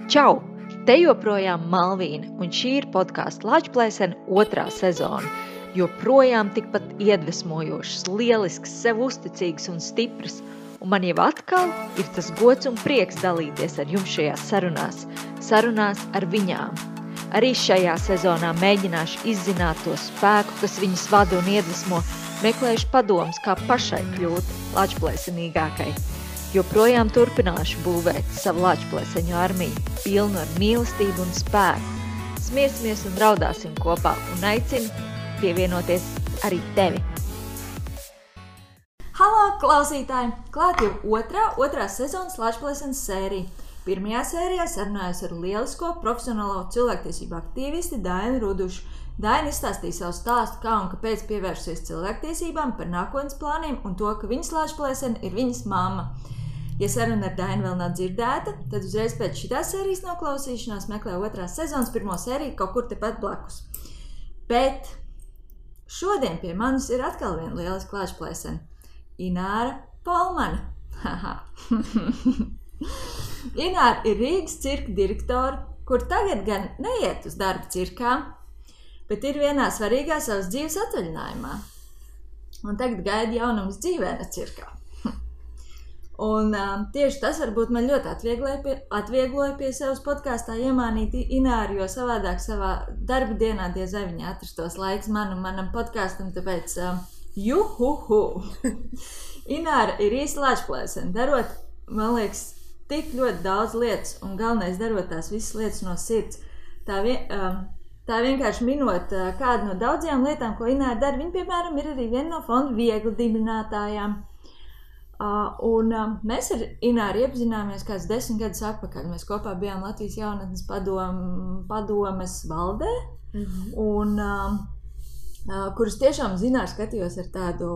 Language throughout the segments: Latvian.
Čau! Te joprojām Malvīna, un šī ir podkāsta Lāčplēsene 2. sezona. Joprojām tikpat iedvesmojošs, lielisks, sev uzticīgs un stiprs. Un man jau atkal ir tas gods un prieks dalīties ar jums šajās sarunās ar viņām. Arī šajā sezonā mēģināšu izzināt to spēku, kas viņas vada un iedvesmo, meklēšu padomus, kā pašai kļūt lāčplēsenīgākai. Joprojām turpināšu būvēt savu lāčplēseņu armiju, pilnu ar mīlestību un spēku. Smiesimies un raudāsim kopā un aicinu pievienoties arī tevi. Halo, klausītāji! Klāt jau otrā sezonas Lāčplēsenes sērija. Pirmajā sērijā sarunājos ar lielisko profesionālo cilvēktiesību aktīvisti Dainu Rudušu. Daina izstāstīja savu stāstu, kā un kāpēc pievērsusies cilvēktiesībām, par nākotnes plāniem un to, ka viņas Lāčplēsene ir viņas mamma. Ja saruna ar Dainu vēl nav dzirdēta, tad uzreiz pēc šitās sērijas noklausīšanās meklē otrās sezonas pirmo sēriju kaut kur tepat blakus. Bet šodien pie manis ir atkal viena lieliska Lāčplēsene. Ināra Polmane. Ināra ir Rīgas cirka direktore, kur tagad gan neiet uz darbu cirkā, bet ir vienā svarīgā savas dzīves atvaļinājumā. Un tagad gaida jaunums dzīvēna cirkā. Un tieši tas varbūt man ļoti atviegloja pie savas podkāstā iemānīt Ināru, jo savādāk savā darba dienā diez vai viņa atrastos laiks manam podkāstam, tāpēc juhuhu! Ināra ir īsta Lāčplēsene, darot, man liekas, tik ļoti daudz lietas, un galvenais darot tās visas lietas no sirds. Tā vienkārši minot kādu no daudzajām lietām, ko Ināra dara. Viņa, piemēram, ir arī viena no fonda Viegli dibinātājām. Mēs ar Ināru iepazināmies kāds 10 gadus atpakaļ. Mēs kopā bijām Latvijas jaunatnes padomes valdē, un kurus tiešām Ināru skatījos ar tādu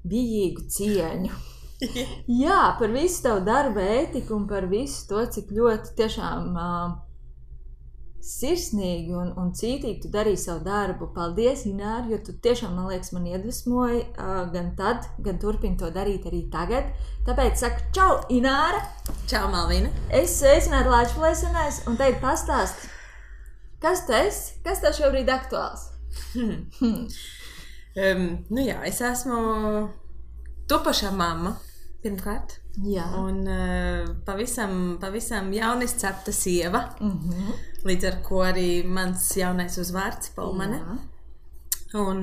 bijīgu cieņu. Jā, par visu tavu darba ētiku un par visu to, cik ļoti tiešām sirsnīgi un cītīgi tu darīji savu darbu. Paldies, Ināra, jo tu tiešām, man liekas, man iedvesmoji gan tad, gan turpini to darīt arī tagad. Tāpēc saku, čau, Ināra! Čau, Malvīna! Es sveicinātu Lāčplēsenēs un tagad pastāst, kas tu esi, kas tev šobrīd aktuāls? Es esmu topošā mamma, pirmkārt. Jā. Un pavisam jauniscepta sieva. Līdz ar ko arī mans jaunais uzvārds Polmane. Un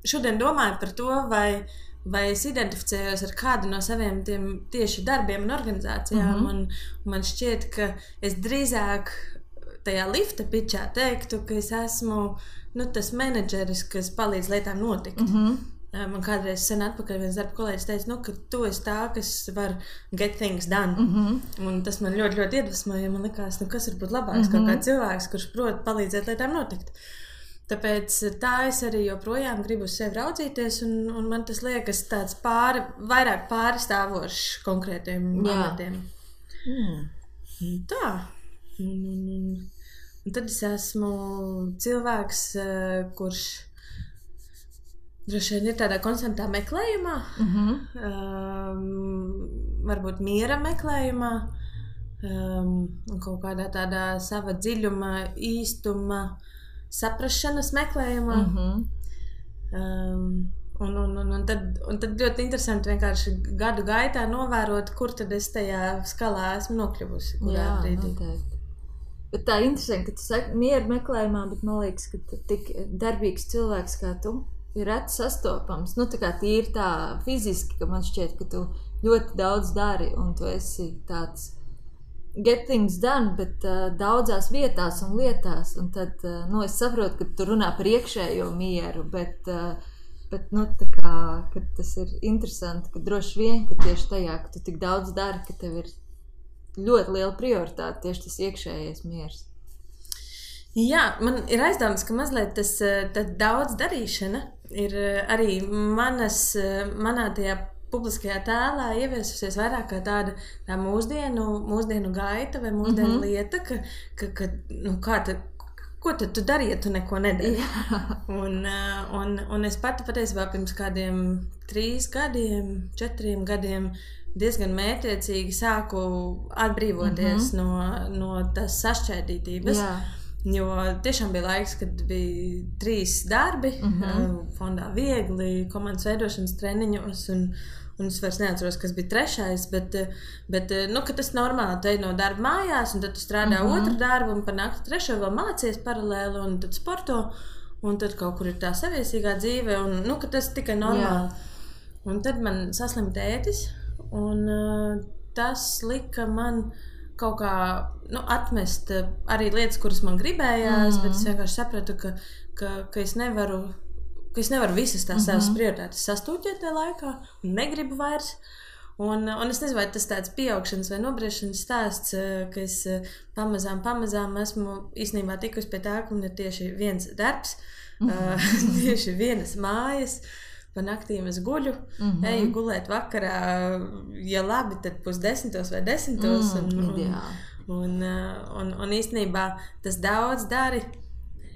šodien domāju par to, vai es identificējos ar kādu no saviem tiem tieši darbiem un organizācijām. Un man šķiet, ka es drīzāk tajā lifta pičā teiktu, ka es esmu tas menedžeris, kas palīdz lietām notikt. Man kādreiz sen atpakaļ viens darba kolēģis teica, ka tu esi tā, kas var get things done. Un tas man ļoti, ļoti iedvesmoja, jo man likās, kas var būt labāks kaut kāds cilvēks, kurš prot palīdzēt lietām notikt. Tāpēc tā es arī joprojām gribu uz sevi raudzīties, un man tas liekas tāds vairāk pārstāvošs konkrētiem amatiem. Tā. Un tad es esmu cilvēks, kurš droši vien ir tādā konstantā meklējumā, varbūt miera meklējumā, un kaut kādā tādā sava dziļuma, īstuma, saprašanas meklējumā. Un tad ļoti interesanti vienkārši gadu gaitā novērot, kur tad es tajā skalā esmu nokļuvusi, kurā brīdī. Noteikti. Bet tā interesanti, ka tu saki miera meklējumā, bet man liekas, ka tik darbīgs cilvēks kā tu ir reti sastopams. Tā kā tīri tā fiziski, ka man šķiet, ka tu ļoti daudz dari un tu esi tāds get things done, bet daudzās vietās un lietās. Un tad, es saprotu, ka tu runā par iekšējo mieru, bet tā kā, ka tas ir interesanti, ka droši vien, ka tieši tajā, ka tu tik daudz dari, ka tev ir ļoti liela prioritāte tieši tas iekšējais miers. Jā, man ir aizdomas, ka mazliet tas daudz darīšana ir arī manā tajā publiskajā tēlā ieviesusies vairāk kā tāda mūsdienu gaita vai mūsdienu lieta, ko tad tu dari, ja tu neko nedari? Un es pati patiesībā pirms kādiem 3 gadiem, 4 gadiem diezgan mērķiecīgi sāku atbrīvoties no tās sašķēdītības. Jo tiešām bija laiks, kad bija 3 darbi, fondā viegli, komandas veidošanas treniņos, un es vairs neatceros, kas bija 3, bet ka tas normāli, tu ej no darba mājās, un tad tu strādā otru darbu, un par nakti 3 vēl mācies paralēli, un tad sporto, un tad kaut kur ir tā saviesīgā dzīve, un ka tas tikai normāli. Un tad man saslim tētis, un tas lika man kaut kā atmest arī lietas, kuras man gribējās, bet es vienkārši sapratu, ka es nevaru visas tās savas prioritātes sastūķēt tajā laikā un negribu vairs. Un es nezinu, vai tas tāds pieaugšanas vai nobriešanas stāsts, ka es pamazām esmu īstenībā tikusi pie tā, ka man ir tieši viens darbs, tieši vienas mājas. Pa naktīm es guļu, eju gulēt vakarā, ja labi, tad 9:30 vai 10:00. Un īstenībā tas daudz dari.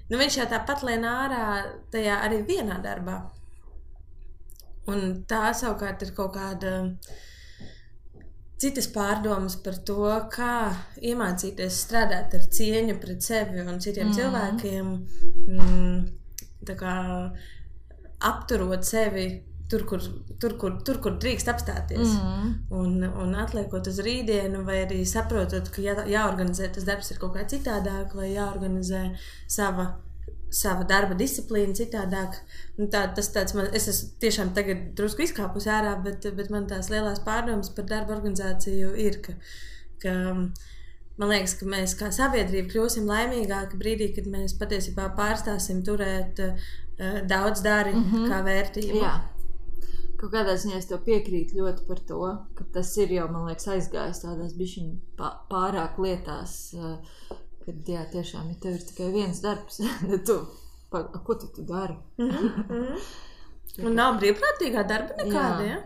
Viņš jau tāpat lien ārā tajā arī vienā darbā. Un tā savukārt ir kaut kāda citas pārdomas par to, kā iemācīties strādāt ar cieņu pret sevi un citiem cilvēkiem. Tā kā apturot sevi tur, kur drīkst apstāties. Un atliekot uz rītdienu, vai arī saprotot, ka jāorganizē tas darbs ir kaut kā citādāk, vai jāorganizē sava darba disciplīna citādāk. Tas tāds es esmu tiešām tagad drusku izkāpus ārā, bet man tās lielās pārdomas par darba organizāciju ir, ka man liekas, ka mēs kā sabiedrība kļūsim laimīgāki brīdī, kad mēs patiesībā pārstāsim turēt daudz dari kā vērtību. Jā. Kaut kādā ziņā es tev piekrītu ļoti par to, ka tas ir jau, man liekas, aizgājis tādās bišķiņ pārāk lietās, kad jā, tiešām, ja tev ir tikai viens darbs, ko tu dari? Un nav brīvprātīgā darba nekāda, ja?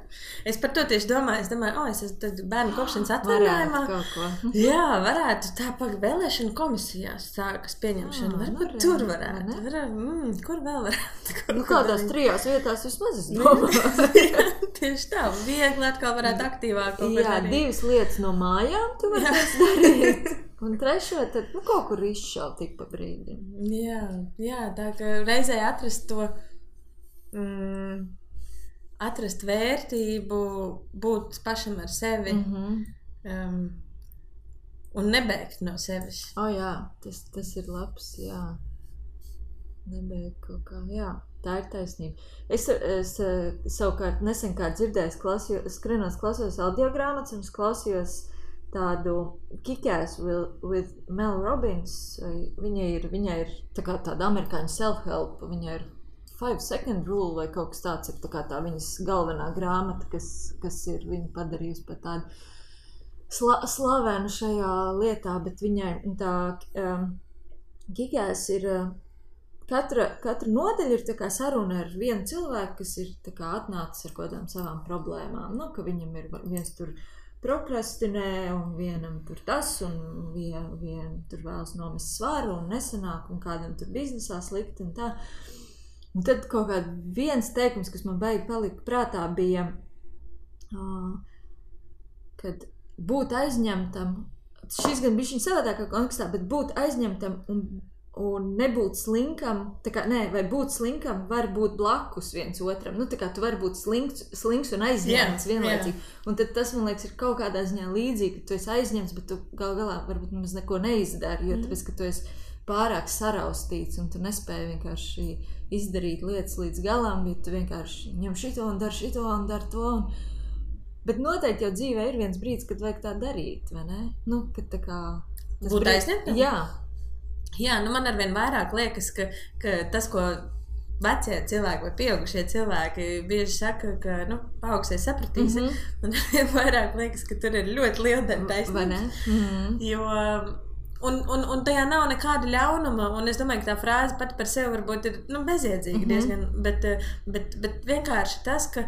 Es par to tieši domāju, es esmu bērnu kopšanas atvaļinājumā. Jā, varētu tā vēlēšana komisijās sākas pieņemšana. Varbūt tur varētu. Kur vēl varētu? Kādās 3 vietās vismaz es domāju. Tieši tā, viegli atkal varētu aktīvāk. Jā, 2 lietas no mājām tu varēsi darīt. Un 3, tad kaut kur izšaut tik pa brīdim. Jā, tā ka reizē atrast to atrast vērtību, būt pašam ar sevi un nebēgt no sevis. Jā, tas ir labs, jā. Nebēgt kaut kā, jā. Tā ir taisnība. Es savukārt nesen kā dzirdēju, skrienos klausījos audiogrāmatas un es klausījos tādu Kick-Ass with Mel Robbins. Viņai ir tā kā tāda amerikāņu self-help, viņai ir 5-second rule vai kaut kas tāds ir tā viņas galvenā grāmata, kas ir viņa padarījusi par tādu slavenu šajā lietā, bet viņai tā Kick-Ass ir katra nodaļa ir tā kā saruna ar vienu cilvēku, kas ir tā kā atnācis ar kādām savām problēmām, ka viņam ir viens tur prokrastinē un vienam tur tas un vien tur vēlas nomest svaru un nesanāk un kādam tur biznesā slikti un tā. Un tad kaut kāds viens teikums, kas man baigi palika prātā, bija, kad būt aizņemtam, šis gan bišķiņ savādākā kontekstā, bet būt aizņemtam un nebūt slinkam, vai būt slinkam var būt blakus viens otram. Tā kā tu vari būt slinks un aizņemts vienlaicīgi. Un tad tas, man liekas, ir kaut kādā ziņā līdzīgi, ka tu esi aizņemts, bet tu galā varbūt nemaz neko neizdari, jo tāpēc, ka tu esi pārāk saraustīts un tu nespēji vienkārši izdarīt lietas līdz galam, bet tu vienkārši ņem šito un dar to. Bet noteikti jau dzīvē ir viens brīdis, kad vajag tā darīt, vai ne? Kad tā kā... Būt aizņemtam? Jā, man arvien vairāk liekas, ka tas, ko vecie cilvēki vai pieaugušie cilvēki bieži saka, ka paaugsies sapratīsi, man arvien vairāk liekas, ka tur ir ļoti liela taisnība. Vai ne? Jo... Un tajā nav nekāda ļaunuma, un es domāju, ka tā frāze pati par sevi varbūt ir bezjēdzīga diezgan, bet vienkārši tas, ka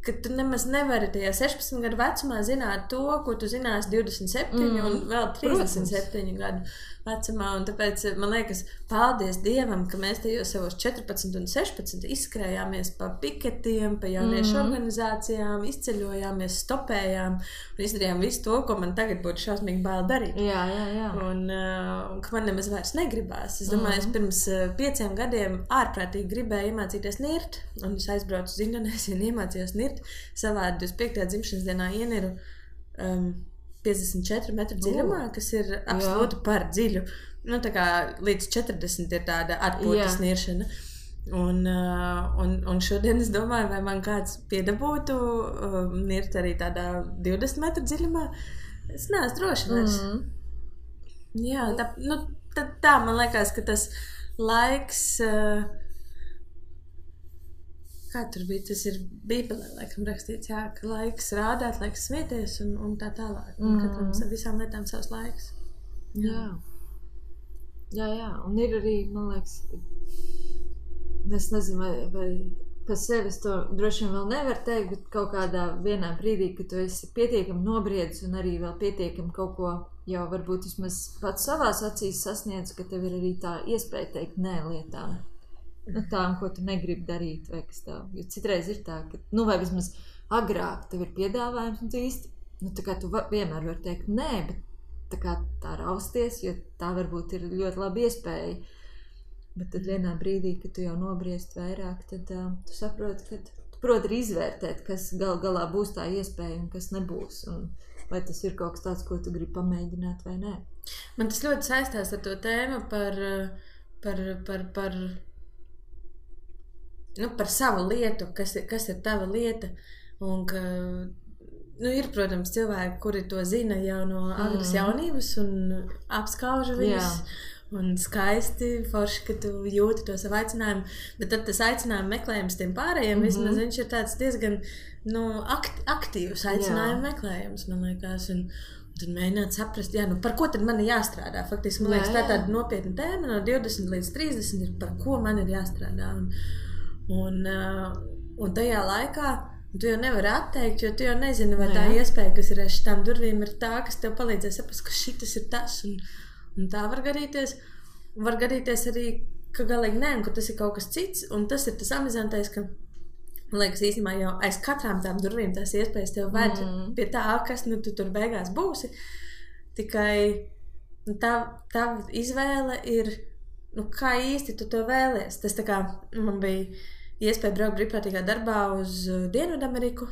ka tu nemaz nevari tajā 16 gadu vecumā zināt to, ko tu zināsi 27 un vēl 37 gadu vecumā. Un tāpēc man liekas, paldies Dievam, ka mēs tajos savos 14 un 16 izskrējāmies pa piketiem, pa jauniešu organizācijām, izceļojāmies, stopējām un izdarījām visu to, ko man tagad būtu šausmīgi bail darīt. Jā. Un ka man nemaz vairs negribās. Es domāju, es pirms 5 gadiem ārprātīgi gribēju iemācīties nirt, un es aizbraucu uz Indonēziju un iemācījos nirt. Savā 25. dzimšanas dienā ieniru 54 metru dziļumā, kas ir absolūti par dziļu. Nu, tā kā līdz 40 ir tāda atpūtas niršana. Un šodien es domāju, vai man kāds piedabūtu nirt arī tādā 20 metru dziļumā. Es neesmu droši vairs. Jā, tā man liekas, ka tas laiks... Kā tur bija? Tas ir Bībelē, laikam, rakstīts, jā, ka laiks rādāt, laiks smieties un tā tālāk. Un katram visām lietām savs laiks. Jā. Un ir arī, man liekas, es nezinu, vai par sevi es to droši vien vēl nevaru teikt, bet kaut kādā vienā brīdī, ka tu esi pietiekami nobriedis un arī vēl pietiekami kaut ko jau varbūt vismaz pats savās acīs sasniedz, ka tev ir arī tā iespēja teikt nē lietām. Tām, ko tu negribi darīt, vai kas tā. Jo citreiz ir tā, ka, vai vismaz agrāk tev ir piedāvājums, un tu īsti, tā kā tu vienmēr vari teikt nē, bet tā rausties, jo tā varbūt ir ļoti laba iespēja. Bet tad vienā brīdī, kad tu jau nobriest vairāk, tad tu saproti, ka tu proti arī izvērtēt, kas galā būs tā iespēja un kas nebūs. Un vai tas ir kaut kas tāds, ko tu gribi pamēģināt vai nē. Man tas ļoti saistās ar to tēmu par savu lietu, kas ir tava lieta, un ka, ir, protams, cilvēki, kuri to zina jau no agras jaunības un apskauža viņus, un skaisti, forši, ka tu jūti to savu aicinājumu, bet tad tas aicinājumu meklējums tiem pārējiem, vismaz viņš ir tāds diezgan, aktīvs aicinājumu meklējums, man liekas, un tad mēģināt saprast, par ko tad man ir jāstrādā. Faktiski, man liekas, tā tāda nopietna tēma no 20 līdz 30 ir, par ko man ir jāstrādā. Un tajā laikā tu jau nevari atteikt, jo tu jau nezini, vai tā iespēja, kas ir aiz šitām durvīm, ir tā, kas tev palīdzēs saprast, ka šitas ir tas, un tā var gadīties. Var gadīties arī, ka galīgi nē, un ka tas ir kaut kas cits, un tas ir tas amizantais, ka, man liekas, īstenībā jau aiz katrām tām durvīm tās iespējas tev ved pie tā, kas tu tur beigās būsi. Tikai tā izvēle ir, kā īsti tu to vēlies. Tas tā kā man bija iespēja braukt brīvprātīgā darbā uz Dienvidameriku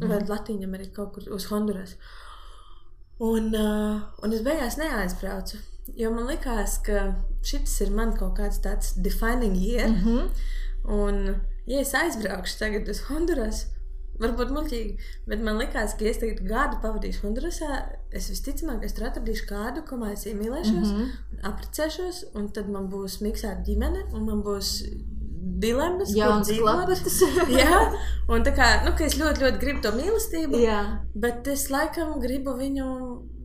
vai Latīņameriku, kaut kur uz Honduras. Un es beigās neaizbraucu, jo man likās, ka šitas ir man kaut kāds tāds defining year. Un, ja es aizbraukšu tagad uz Honduras, varbūt muļķīgi, bet man likās, ka ja es tagad gadu pavadīšu Hondurasā, es visticamāk, es tur atradīšu kādu, ko es iemīlēšos, apprecēšos, un tad man būs miksēta ģimene, un man būs dilemmas, kur dzīvot. Jā, un tā kā, ka es ļoti, ļoti gribu to mīlestību, bet es laikam gribu viņu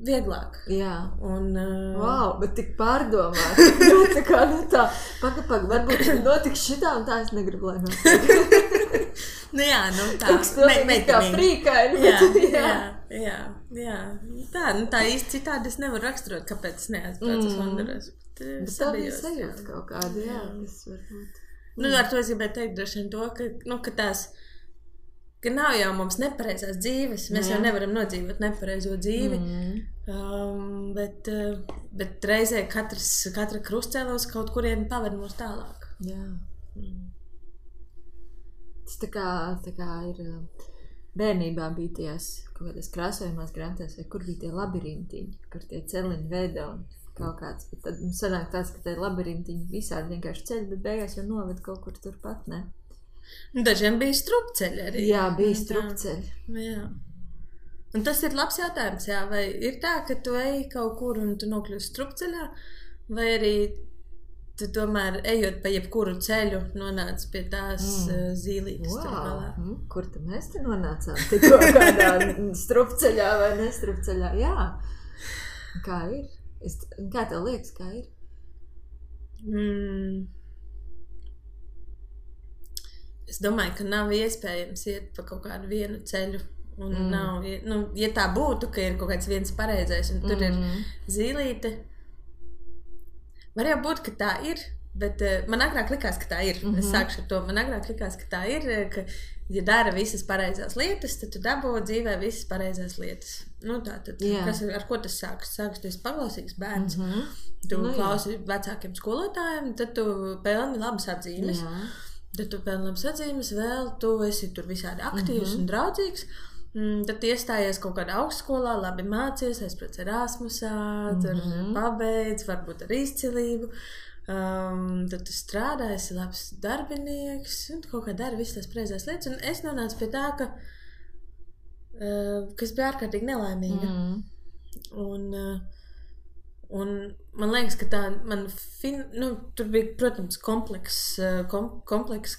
vieglāk. Jā. Un, wow, bet tik pārdomāt. Tā kā, paka, varbūt notiks šitā, un tā es negribu, lai notiek. Tā. Kaut kas pilnīgi kā frīkaini. Jā. Tā īsti citādi es nevaru raksturot, kāpēc es neaizbraucu uz Honduras. Bet tā bija sajūta kaut kāda, tas varbūt. Ar to es gribēju teikt droši vien to, ka nav jau mums nepareizās dzīves. Mēs jau nevaram nodzīvot nepareizo dzīvi. Bet reizē katra krustcēlos kaut kurien paved mūs tālāk. Jā. Tas tā kā ir bērnībā bija tajās kaut kādās krāsojumās grāmatās, vai kur bija tie labirintiņi, kur tie celiņi veido un kaut kāds, bet tad mums sanāk tāds, ka tie labirintiņi visādi vienkārši ceļi, bet beigās jau noved kaut kur turpat, ne? Dažiem bija strupceļi arī. Jā, bija strupceļi. Jā. Un tas ir labs jautājums, vai ir tā, ka tu ej kaut kur un tu nokļūsi strupceļā, vai arī tu tomēr ejot pa jebkuru ceļu nonāc pie tās zīlītes tur galā. Kur tu mēs te nonācām? Tikko kādā strupceļā vai nestrupceļā? Jā. Kā ir? Kā tev liekas, kā ir? es domāju, ka nav iespējams iet pa kaut kādu vienu ceļu. Un nav, ja tā būtu, ka ir kaut kāds viens pareizais un tur ir zīlīte, var jau būt, ka tā ir, bet man agrāk likās, ka tā ir. Es sākšu ar to. Man agrāk likās, ka tā ir, ka ja dara visas pareizās lietas, tad tu dabū dzīvē visas pareizās lietas. Tātad, ar ko tas sākas? Sākas, tu esi paklausīgs bērns, tu klausi vecākiem skolotājiem, tad tu pelni labas atzīmes. Tad tu pelni labas atzīmes, vēl tu esi tur visādi aktīvs un draudzīgs. Tad iestājies kaut kādā augstskolā, labi mācies, aizbrauc Erasmusā, tur pabeidz, varbūt ar izcilību. Tad tu strādā, esi labs darbinieks un kaut kā dari visas tās pareizās lietas. Un es nonācu pie tā, ka es biju ārkārtīgi nelaimīga. Un man liekas, ka tā tur bija, protams, komplekss,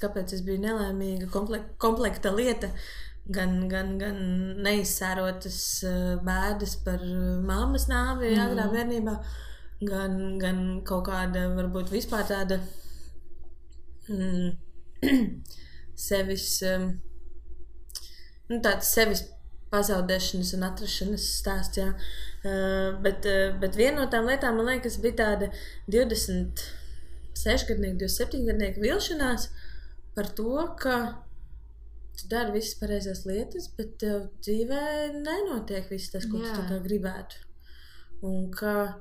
kāpēc es biju nelaimīga, komplekta lieta. Gan neizsērotas bēdas par mammas nāvi agrā bērnībā, gan kaut kāda, varbūt vispār tāda sevis pazaudēšanas un atrašanas stāsts, jā. Bet viena no tām lietām, man liekas, bija tāda 26-gadnieka, 27-gadnieka vilšanās par to, ka tu dari visas pareizās lietas, bet tev dzīvē nenotiek viss tas, ko tu tā kā gribētu. Un ka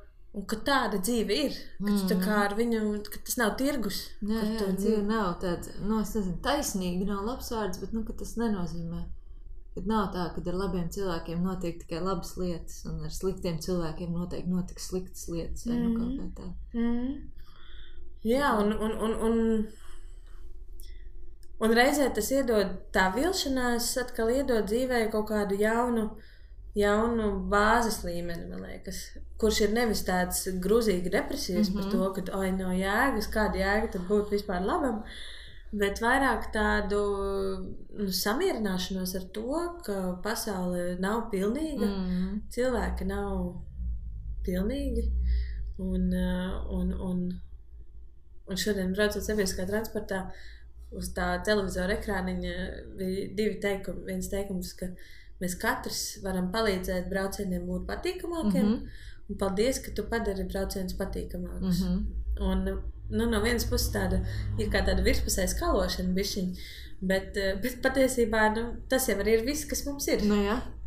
tāda dzīve ir, ka tu tā kā ar viņu, ka tas nav tirgus. Jā, dzīve nav tāda, es nezinu, taisnīga, nav labs vārds, bet, ka tas nenozīmē. Kad nav tā, kad ar labiem cilvēkiem notiek tikai labas lietas, un ar sliktiem cilvēkiem noteikti notiks sliktas lietas, vai kaut kā tā. Jā, un reizē tas iedod, tā vilšanās atkal iedod dzīvē kaut kādu jaunu bāzes līmeni, man liekas, kurš ir nevis tāds grūzīgi depresijas par to, ka nav jēgas, kāda jēga tad būtu vispār labam, bet vairāk tādu samierināšanos ar to, ka pasaule nav pilnīga, cilvēki nav pilnīgi, un šodien braucot sabiedriskā transportā, uz tā televizora ekrāniņa bija divi teikumi. Viens teikums, ka mēs katrs varam palīdzēt braucieniem būt patīkamākiem, un paldies, ka tu padari braucienus patīkamākus. Un no vienas puses ir kā tāda virspusēja skalošana bišķiņ, bet patiesībā tas jau arī ir viss, kas mums ir.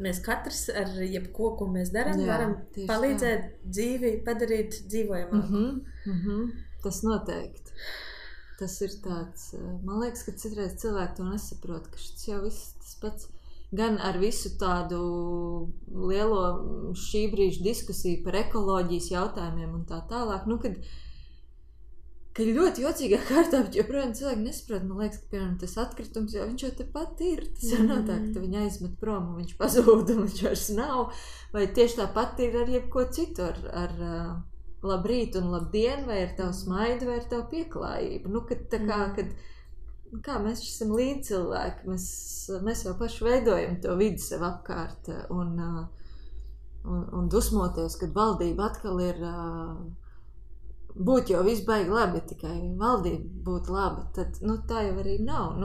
Mēs katrs ar jebko, ko mēs darām, varam palīdzēt dzīvi padarīt dzīvojamāku. Tas noteikti. Tas ir tāds, man liekas, ka citreiz cilvēki to nesaprot, ka šis jau viss tas pats, gan ar visu tādu lielo šī brīža diskusiju par ekoloģijas jautājumiem un tā tālāk, kad ļoti jocīgā kārtā, bet joprojām cilvēki nesaprot, man liekas, ka, piemēram, tas atkritums jau viņš jau tepat ir, tas jau nav tā, ka viņu aizmet prom un viņš pazūd un viņš vairs nav, vai tieši tāpat ir ar jebko citu, ar labrīt un labdien, vai ar tavu smaidu, vai ar tavu pieklājību. Kā mēs esam līdzcilvēki, mēs jau paši veidojam to vidi sev apkārt un dusmoties, kad valdība atkal ir būt jau viss baigi labi, ja tikai valdība būtu laba, tad tā jau arī nav.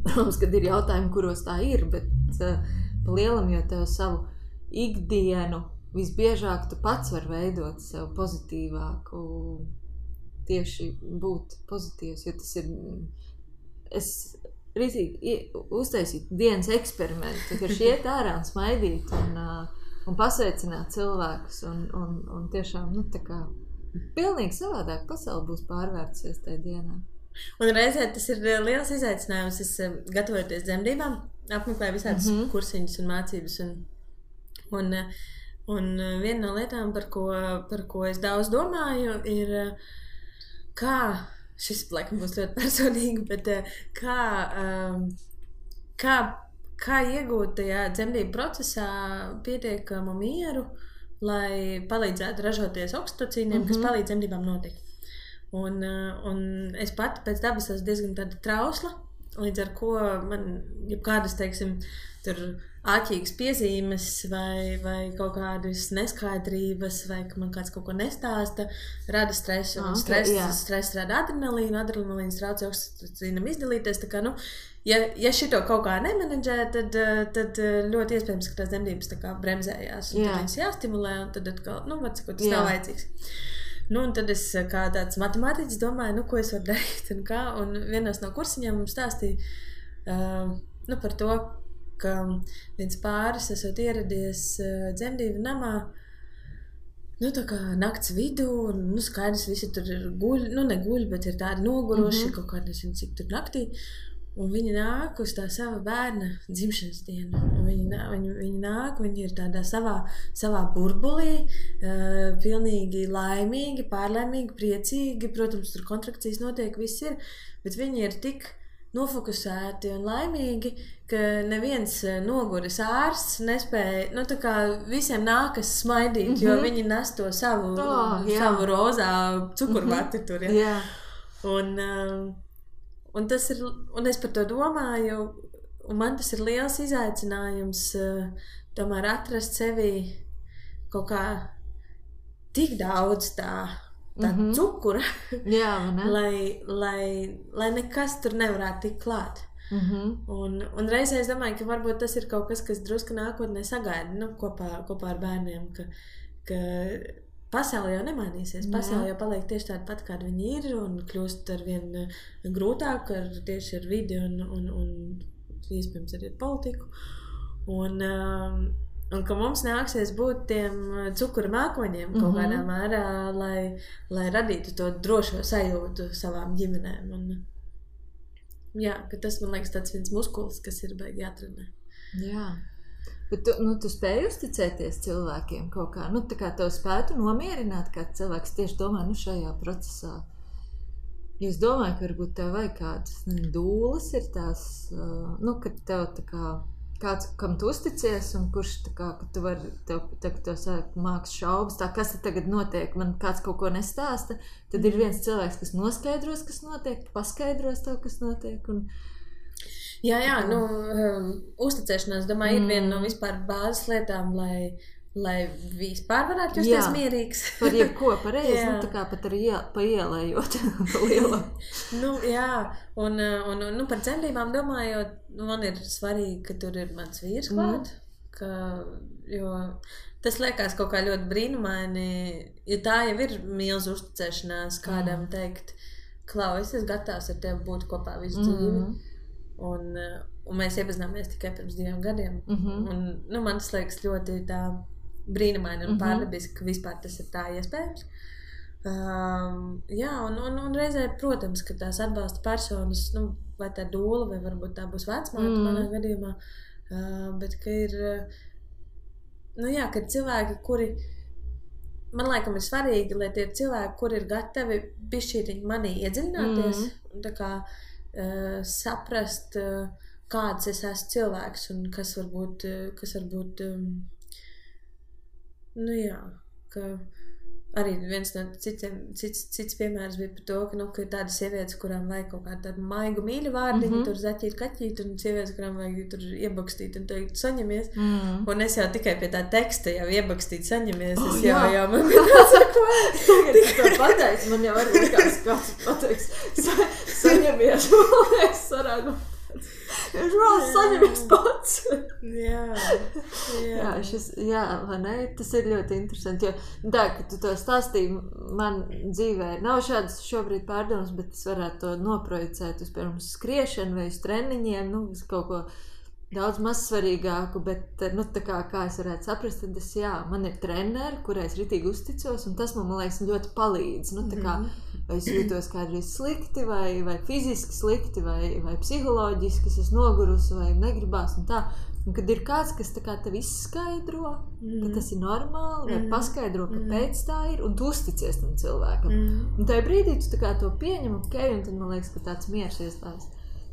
Protams, kad ir jautājumi, kuros tā ir, bet pa lielam jau tev savu ikdienu visbiežāk tu pats var veidot sev pozitīvāku, tieši būt pozitīvs, jo tas ir, es rītīgi uztaisītu dienas eksperimentu, ka iet ārā un smaidīt un pasveicināt cilvēkus un tiešām, tā kā pilnīgi savādāk pasaule būs pārvērtusies tajā dienā. Un reizē tas ir liels izaicinājums, es gatavojoties dzemdībām, apmeklēju visādas kursiņus un mācības un viena no lietām, par ko es daudz domāju, ir kā, šis laikam būs ļoti personīgi, bet kā iegūt tajā dzemdību procesā pietiekamu mieru, lai palīdzētu ražoties oksitocīniem, kas palīdz dzemdībām notikt. Un es pati pēc dabas esmu diezgan tāda trausla, līdz ar ko man jebkādas, teiksim, tur āķīgas piezīmes vai kaut kādas neskaidrības, vai ka man kāds kaut ko nestāsta, rada stresu, un stress rada adrenalīnu, adrenalīns traucē oksitocīnam izdalīties, tā kā, ja šito kaut kā nemenedžē, tad ļoti iespējams, ka tās dzemdības tā kā bremzējās, un tad viņas jāstimulē, un tad atkal, tas nav vajadzīgs. Un tad es kā tāds matemātiķis domāju, ko es varu darīt un kā, un vienos no kursiņiem mums stāstīja par to, ka viens pāris esot ieradies dzemdību namā, tā kā nakts vidū, un skaidrs, visi tur guļ, neguļ, bet ir tādi noguruši, kaut kādi, nezinu, cik tur naktī, un viņi nāk uz tā sava bērna dzimšanas dienu, un viņi nāk, viņi ir tādā savā burbulī, pilnīgi laimīgi, pārlaimīgi, priecīgi, protams, tur kontrakcijas notiek, viss ir, bet viņi ir tik nofokusēti un laimīgi, ka neviens noguris ārsts nespēja, tā kā visiem nākas smaidīt, jo viņi nes to savu rozā cukurvati tur, Un tas ir, un es par to domāju, un man tas ir liels izaicinājums tomēr atrast sevī kaut kā tik daudz tā cukura, lai nekas tur nevarētu tikt klāt. Un reizē es domāju, ka varbūt tas ir kaut kas drusku nākotnē sagaida, kopā ar bērniem, ka pasaule jau nemainīsies, pasaule jau paliek tieši tāda pat, kāda viņi ir, un kļūst arvien grūtāk tieši ar vidi un iespējams arī ar politiku. Un ka mums nāksies būt tiem cukura mākoņiem kaut kādā mērā, lai radītu to drošo sajūtu savām ģimenēm. Un, ka tas, man liekas, tāds viens muskulis, kas ir baigi jātrenē. Jā. Bet tu spēji uzticēties cilvēkiem kaut kā, tā kā tev spētu nomierināt, kā cilvēks tieši domā, šajā procesā. Es domāju, ka varbūt tev vajag kādas dūles ir tās, ka tev tā kā kāds, kam tu uzticies, un kurš tā kā, ka tu vari, tev sāk māks šaubas, tā kas tagad notiek, man kāds kaut ko nestāsta, tad ir viens cilvēks, kas noskaidros, kas notiek, paskaidros tev, kas notiek, un... Jā, uzticēšanās, domāju, ir viena no vispār bāzes lietām, lai vispār varētu justies mierīgs. Par jebko pareizi, tā kā pat arī pa ielējot lielu. Un par dzemdībām domājot, man ir svarīgi, ka tur ir mans vīrs klāt, jo tas liekas kaut kā ļoti brīnumaini, jo tā jau ir milzu uzticēšanās kādam teikt, Klau, es esmu gatavs ar tevi būt kopā visu dzīvi. Un mēs iepazināmies tikai pirms 2 gadiem. Un man tas liekas ļoti tā brīnumaini un pārdabiski, ka vispār tas ir tā iespējams. Un reizē, protams, ka tās atbalsta personas, vai tā dūla, vai varbūt tā būs vecmāte manā gadījumā, bet ka ir, ka cilvēki, kuri, man laikam ir svarīgi, lai tie ir cilvēki, kuri ir gatavi bišķītiņi manī iedziļināties, un tā kā saprast, kāds es esmu cilvēks un kas varbūt ka arī viens no cits piemērs bija par to, ka ir tādas sievietes, kurām vajag kaut kādu tādu maigu mīļu vārdiņu, tur zaķīt, kaķīt, un sievietes, kurām vajag tur iebakstīt un teikt saņemies. Un es jau tikai pie tā teksta jau iebakstīt saņemies, es jau man bija tāds ko. Tagad tu to pateici, man jau arī kāds pateiks saņemies, es varētu. Es vēl saņemies pats. Vai ne? Tas ir ļoti interesanti, jo tā, ka tu to stāstīji, man dzīvē nav šādas šobrīd pārdomas, bet es varētu to noprojicēt uz, piemēram, skriešanu vai uz treniņiem, uz kaut ko daudz maz svarīgāku, bet, tā kā es varētu saprast, tad man ir treneri, kurai es ritīgi uzticos, un tas man liekas ļoti palīdz, tā kā, vai es jūtos kādreiz slikti, vai fiziski slikti, vai psiholoģiski, es esmu nogurusi, vai negribās, un tā, un kad ir kāds, kas tā kā tev izskaidro, ka tas ir normāli, vai paskaidro, kāpēc tā ir, un tu uzticies tam cilvēkam, un tajā brīdī tu tā kā to pieņem, un tad man liekas, ka tāds miers iestājas.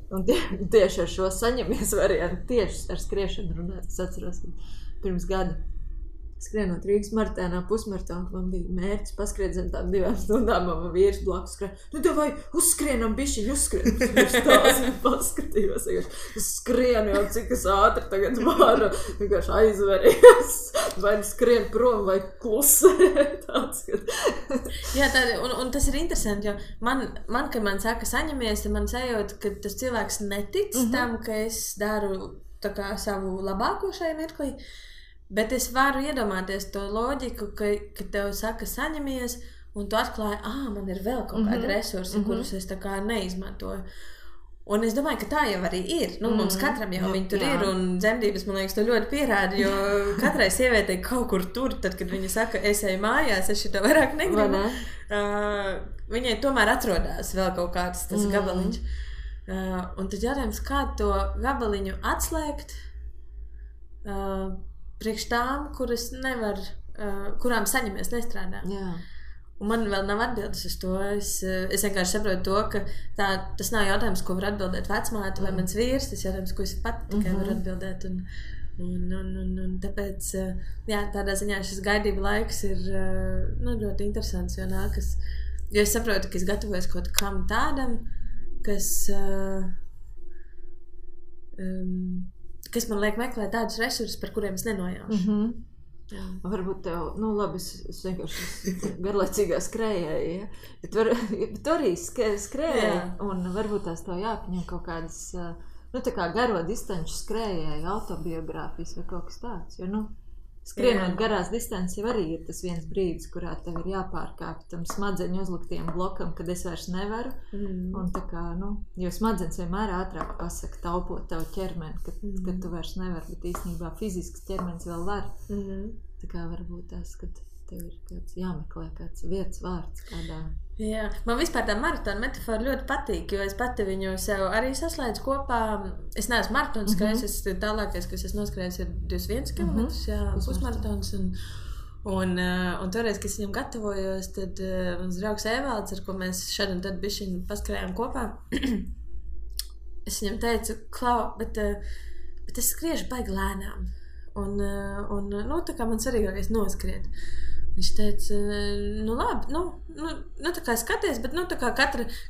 Un tieši ar šo saņemies variantu, tieši ar skriešanu runāt. Es atceros, ka pirms gada skrienot Rīgas maratēnā pusmaratonu, man bija mērķis paskriet zem tām 2 stundām, man vīrs blakus skrien. Nu, vai uzskrienam bišķiņu, uzskrien. Tās paskatījos, es skrienu jau, cik es ātri tagad varu, vienkārši aizveries. Vai skrien prom, vai klusē. Tāds, Jā, un tas ir interesanti, jo man kad man saka saņemies, tad man sajūt, ka tas cilvēks netic tam, ka es daru tā kā savu labāko šai mirklī. Bet es varu iedomāties to loģiku, ka tev saka saņemies, un tu atklāji, man ir vēl kaut kādi resursi, kurus es tā kā neizmantoju. Un es domāju, ka tā jau arī ir. Nu, mums katram jau viņi tur ir, un dzemdības, man liekas, to ļoti pierāda, jo katrai sievietei kaut kur tur, tad, kad viņa saka, es eju mājās, es šito vairāk negribu, viņai tomēr atrodās vēl kaut kāds tas gabaliņš. Un tad jautājums, kā to gabaliņu atslēgt, priekš tām, kurām saņemies nestrādā. Jā. Un man vēl nav atbildes uz to. Es vienkārši saprotu to, ka tas nav jautājums, ko var atbildēt vecmāte vai mans vīrs, tas jautājums, ko es pat tikai varu atbildēt. Un tāpēc, jā, tādā ziņā šis gaidība laiks ir ļoti interesants, jo nākas. Jo es saprotu, ka es gatavojos kaut kam tādam, kas man liek meklēt tādus resursus, par kuriem es nenojaušu. Varbūt tev, labi, es vienkārši garlaicīgā skrējēju, ja? Bet tu arī skrējēji, un varbūt tās tev jāpaņem kaut kādas, tā kā garo distanču skrējēju, autobiogrāfijas vai kaut kas tāds, jo, skrienot garās distances jau arī ir tas viens brīdis, kurā tev ir jāpārkāp tam smadzeņu uzliktiem blokam, kad es vairs nevaru. Un tā kā, jo smadzenes vienmēr ātrāk pasaka taupot tavu ķermeni, kad tu vairs nevari, bet īstenībā fizisks ķermenis vēl var. Tā kā varbūt tas, kad tev ir kāds jāmeklē kāds vietas vārds kādā. Jā, man vispār tā maratona metafora ļoti patīk, jo es pati viņu sev arī saslēdzu kopā. Es neesmu maratons skrējis, tālākais, kas es noskrējis, ir 21 km, pusmaratons. Un toreiz, kad es viņam gatavojos, tad mans draugs Evalds, ar ko mēs šad un tad bišķiņu paskrējām kopā, es viņam teicu, Klau, bet es skriešu baigi lēnām. Un tā kā man svarīgākais noskriet. Viņš teica, labi, tā kā skaties, bet tā kā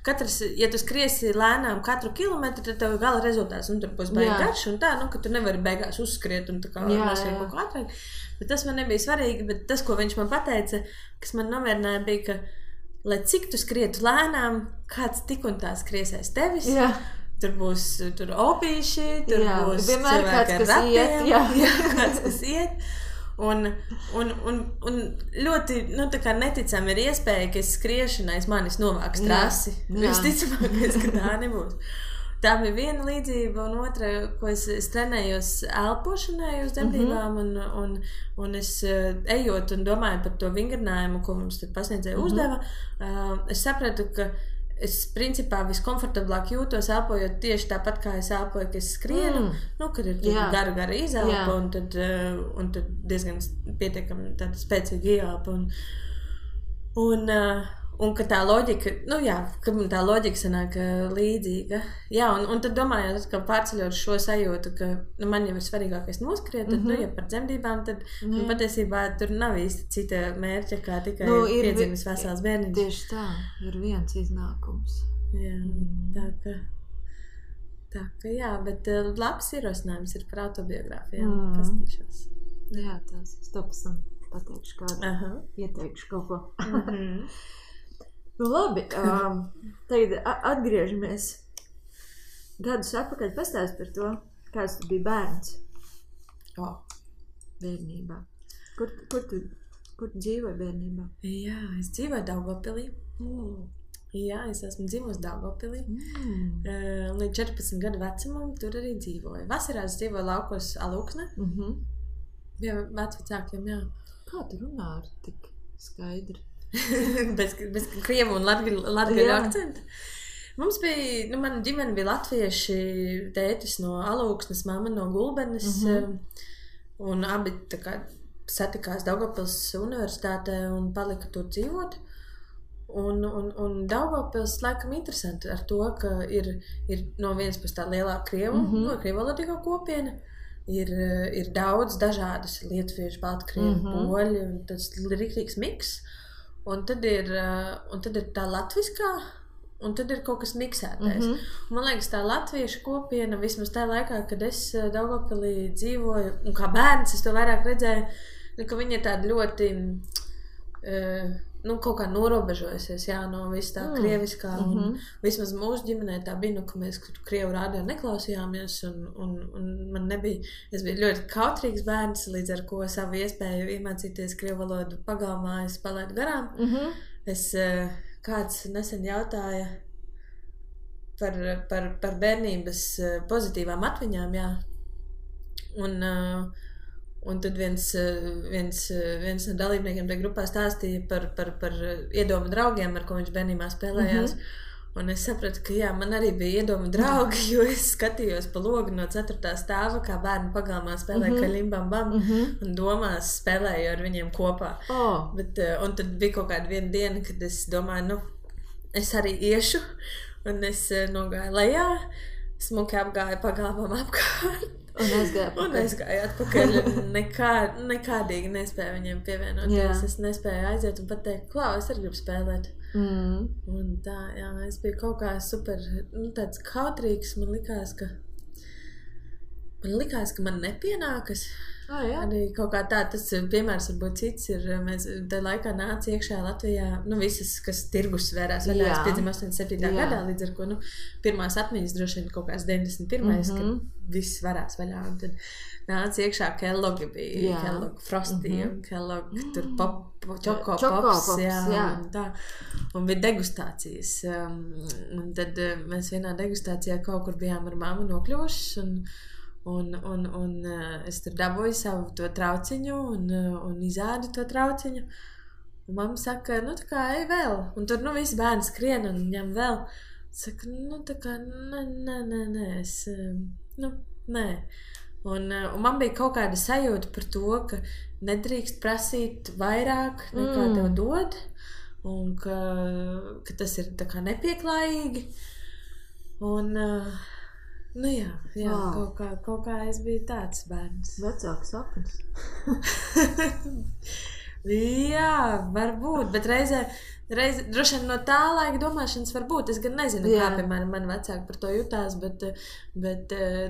katrs, ja tu skriesi lēnām katru kilometru, tad tev gala rezultāts, tur būs baigi garš un tā, ka tu nevari beigās uzskriet un tā kā noskrien kaut kā ātrāk. Bet tas man nebija svarīgi, bet tas, ko viņš man pateica, kas man nomierināja, bija, ka, lai cik tu skrietu lēnām, kāds tik un tā skries aiz tevis. Jā. Tur būs opīši, tur būs cilvēki ar ratiem, kāds, kas iet. Un ļoti, tā kā neticami ir iespēja, ka es skriešana aiz manis novāks trasi. Visticamākais, ka tā nebūs. Tā bija viena līdzība, un otra, ko es trenējos elpošanai uz dzemdībām, un es ejot un domāju par to vingrinājumu, ko mums tad pasniedzēja uzdeva, es sapratu, ka es principā viskomfortablāk jūtos elpojot tieši tāpat, kā es elpoju, ka es skrienu, kad ir gara izelpa un tad diezgan pietiekami tāda spēcīga ieelpa. Un ka tā loģika, ka tā loģika sanāk līdzīga. Jā, un tad domājot, ka pārceļot šo sajūtu, ka man jau ir svarīgākais noskriet, tad, ja par dzemdībām, tad patiesībā tur nav īsti cita mērķa, kā tikai piedzimis vesels bērniņš. Tieši tā, ir viens iznākums. Jā, tā ka jā, bet labs ierosinājums ir par autobiogrāfijām, pastīšos. Jā, tas, es to pasam pateikšu kādu, ieteikšu kaut ko. Labi, tagad atgriežamies gadus atpakaļ, pastāst par to, kāds tu biji bērns bērnībā. Kur tu dzīvoji bērnībā? Jā, es dzīvoju Daugavpilī. Jā, es esmu dzīvojusi Daugavpilī. Līdz 14 gadu vecumam tur arī dzīvoju. Vasarās dzīvoju laukos Alūksne. Bija vecvecākiem, jā. Kā tu runā ar tik skaidri? bez krievu un latgaļu akcentu. Mums bija, mana ģimene bija latvieši, tētis no Alūksnes, mamma no Gulbenes, un abi tā kā satikās Daugavpils universitātē un palika tur dzīvot. Un Daugavpils laikam interesanti ar to, ka ir no vienas puses tā lielā krievalodīgā kopiena, ir daudz dažādas lietuviešu, baltkrievi, poļi, un tas riktīgs miks. Un tad ir tā latviskā, un tad ir kaut kas miksētais. Man liekas, tā latviešu kopiena, vismaz tajā laikā, kad es Daugavpilī dzīvoju, un kā bērns es to vairāk redzēju, ka viņi ir tādi ļoti, kaut kā norobežojusies, no viss tā krieviskā, un vismaz mūsu ģimenē tā bija, ka mēs krievu rādio neklausījāmies, un man nebija, es biju ļoti kautrīgs bērns, līdz ar ko savu iespēju iemācīties krievu valodu pagalmā, es palaidu garām. Kāds nesen jautāja par bērnības pozitīvām atmiņām, un tad viens no dalībniekiem tajā grupā stāstīja par iedomu draugiem, ar ko viņš bērnībā spēlējās. Un es sapratu, ka man arī bija iedomu draugi, jo es skatījos pa logu no 4. stāva, kā bērni pagalmā spēlēja kaļimbam bam, un domās spēlēju ar viņiem kopā. Un tad bija kaut kāda viena diena, kad es domāju, es arī iešu, un es nogāju lejā, smuki apgāju pagalmam apkārt. Un aizgāju atpakaļ. Nekādīgi nespēju viņiem pievienoties. Es nespēju aiziet un pateikt, klau, es arī gribu spēlēt. Un tā, es biju kaut kā super, tāds kautrīgs. Man likās, ka man nepienākas. Arī kaut kā tā, tas piemērs varbūt cits ir, mēs tajā laikā nāca iekšā Latvijā, visas, kas tirgus svērās vaļā, es piedzim 87. gadā, līdz ar ko, pirmās atmiņas droši vien kaut kāds 91. Kad viss varās vaļā, un tad nāca iekšā Kelloggi bija, Kellogg Frosty, un Kellogg tur Choco Pops, un tā, un bija degustācijas, un tad mēs vienā degustācijā kaut kur bijām ar mammu nokļuvušas, un es tur dabūju savu to trauciņu un izādu to trauciņu. Un mamma saka, tā kā ej vēl. Un tur, visi bērni skrien un ņem vēl. Saka, tā kā, nē, es, nē. Un man bija kaut kāda sajūta par to, ka nedrīkst prasīt vairāk nekā tev dod. Un ka tas ir tā kā nepieklājīgi. Un... kaut kā es biju tāds bērns. Vecāks sapnis. Jā, varbūt, bet reizē droši vien no tā laika domāšanas varbūt. Es gan nezinu, kā, piemēram, mani vecāki par to jutās, bet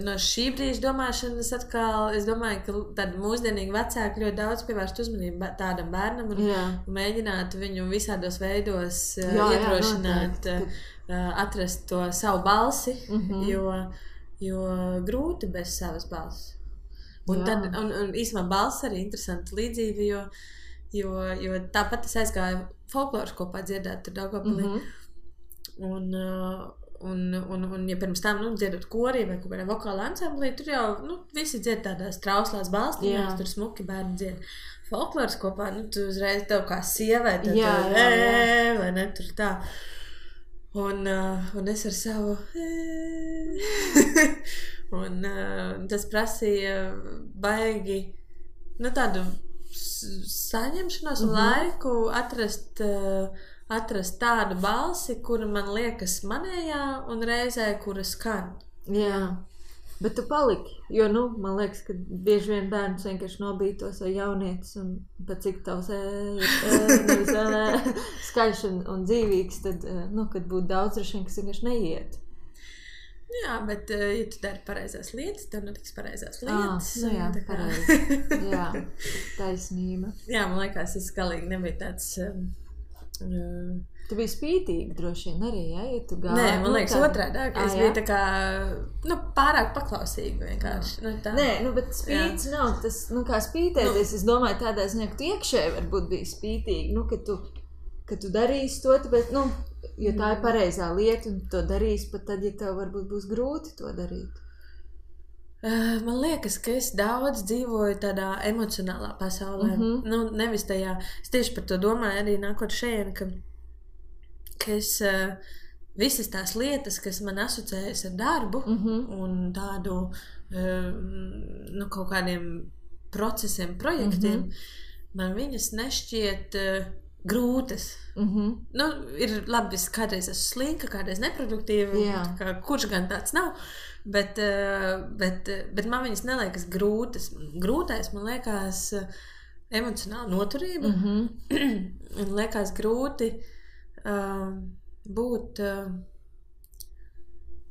no šī brīža domāšanas atkal, es domāju, ka tādi mūsdienīgi vecāki ļoti daudz pievērst uzmanību tādam bērnam un mēģinātu viņu visādos veidos iedrošināt, atrast to savu balsi, jo grūti bez savas balss. Un īstenībā balss arī interesanta līdzība, jo tāpat es aizgāju folkloras kopā dziedāt tur Daugavpilī. Un ja pirms tam dziedot korī vai kaut kādā vokāla ansamblī, tur jau visi dzied tādās trauslās balstiņās, tur smuki bērni dzied. Folkloras kopā, tu uzreiz tev kā sievai, vai ne, tur tā. Un es ar savu un tas prasīja baigi tādu saņemšanos un laiku atrast tādu balsi, kura man liekas manējā un reizē, kura skan. Bet tu paliki, jo, man liekas, ka bieži vien bērns vienkārši nobītos vai jaunietis un pat cik tavs skaļš un dzīvīgs, tad, kad būtu daudz droši vien, kas vienkārši neiet. Jā, bet, ja tu dari pareizās lietas, tad notiks pareizās lietas. Pareizi. Jā, taisnība. Jā, man liekas, es galīgi nebija tāds... Tu biji spītīgi droši vien arī, ja tu gāji? Nē, man liekas otrādāk. Es biju tā kā, pārāk paklausīga vienkārši. Nē, bet spīts nav tas, kā spītēties. Es domāju tādā ziņā, ka tu iekšēji varbūt biji spītīgi, ka tu darīsi to, bet, jo tā ir pareizā lieta un to darīsi pat tad, ja tev varbūt būs grūti to darīt. Man liekas, ka es daudz dzīvoju tādā emocionālā pasaulē. Nevis tajā, es tieši par to domāju arī nākot šeit, ka es visas tās lietas, kas man asociējas ar darbu un tādu kaut kādiem procesiem, projektiem, man viņas nešķiet grūtas. Ir labi, es kādreiz esmu slinka, kādreiz neproduktīva, kurš gan tāds nav, Bet man viņas neliekas grūtas. Grūtais, man liekas, emocionāla noturība. Un liekas grūti būt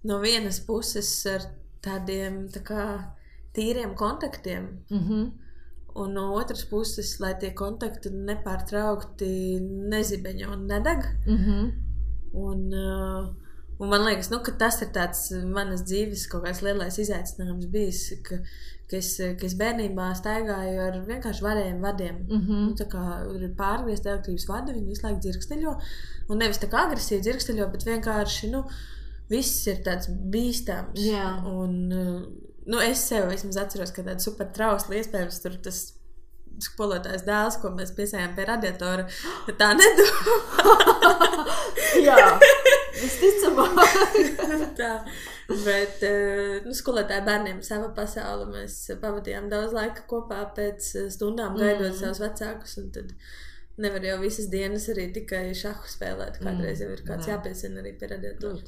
no vienas puses ar tādiem tā kā tīriem kontaktiem. Un no otras puses, lai tie kontakti nepārtraukti nezibeņo un nedeg. Un man liekas, ka tas ir tāds manas dzīves kaut kāds lielais izaicinājums bijis, ka es bērnībā staigāju ar vienkārši varējiem vadiem. Tā kā ir pārgriezti elektrības vadi, viņi visu laiku dzirksteļo. Un nevis tā kā agresīvi dzirksteļo, bet vienkārši, viss ir tāds bīstams. Jā. Un es sev vismaz atceros, ka tāda super trausla iespējams tur tas skolotājs dēls, ko mēs piesējām pie radiatora, tā nedomā. Jā, visticamāk. Tā, bet skolotāja bērniem sava pasaule, mēs pavadījām daudz laika kopā pēc stundām gaidot savus vecākus, un tad nevar jau visas dienas arī tikai šahu spēlēt, kādreiz jau ir kāds jāpiesina arī pie radiatora.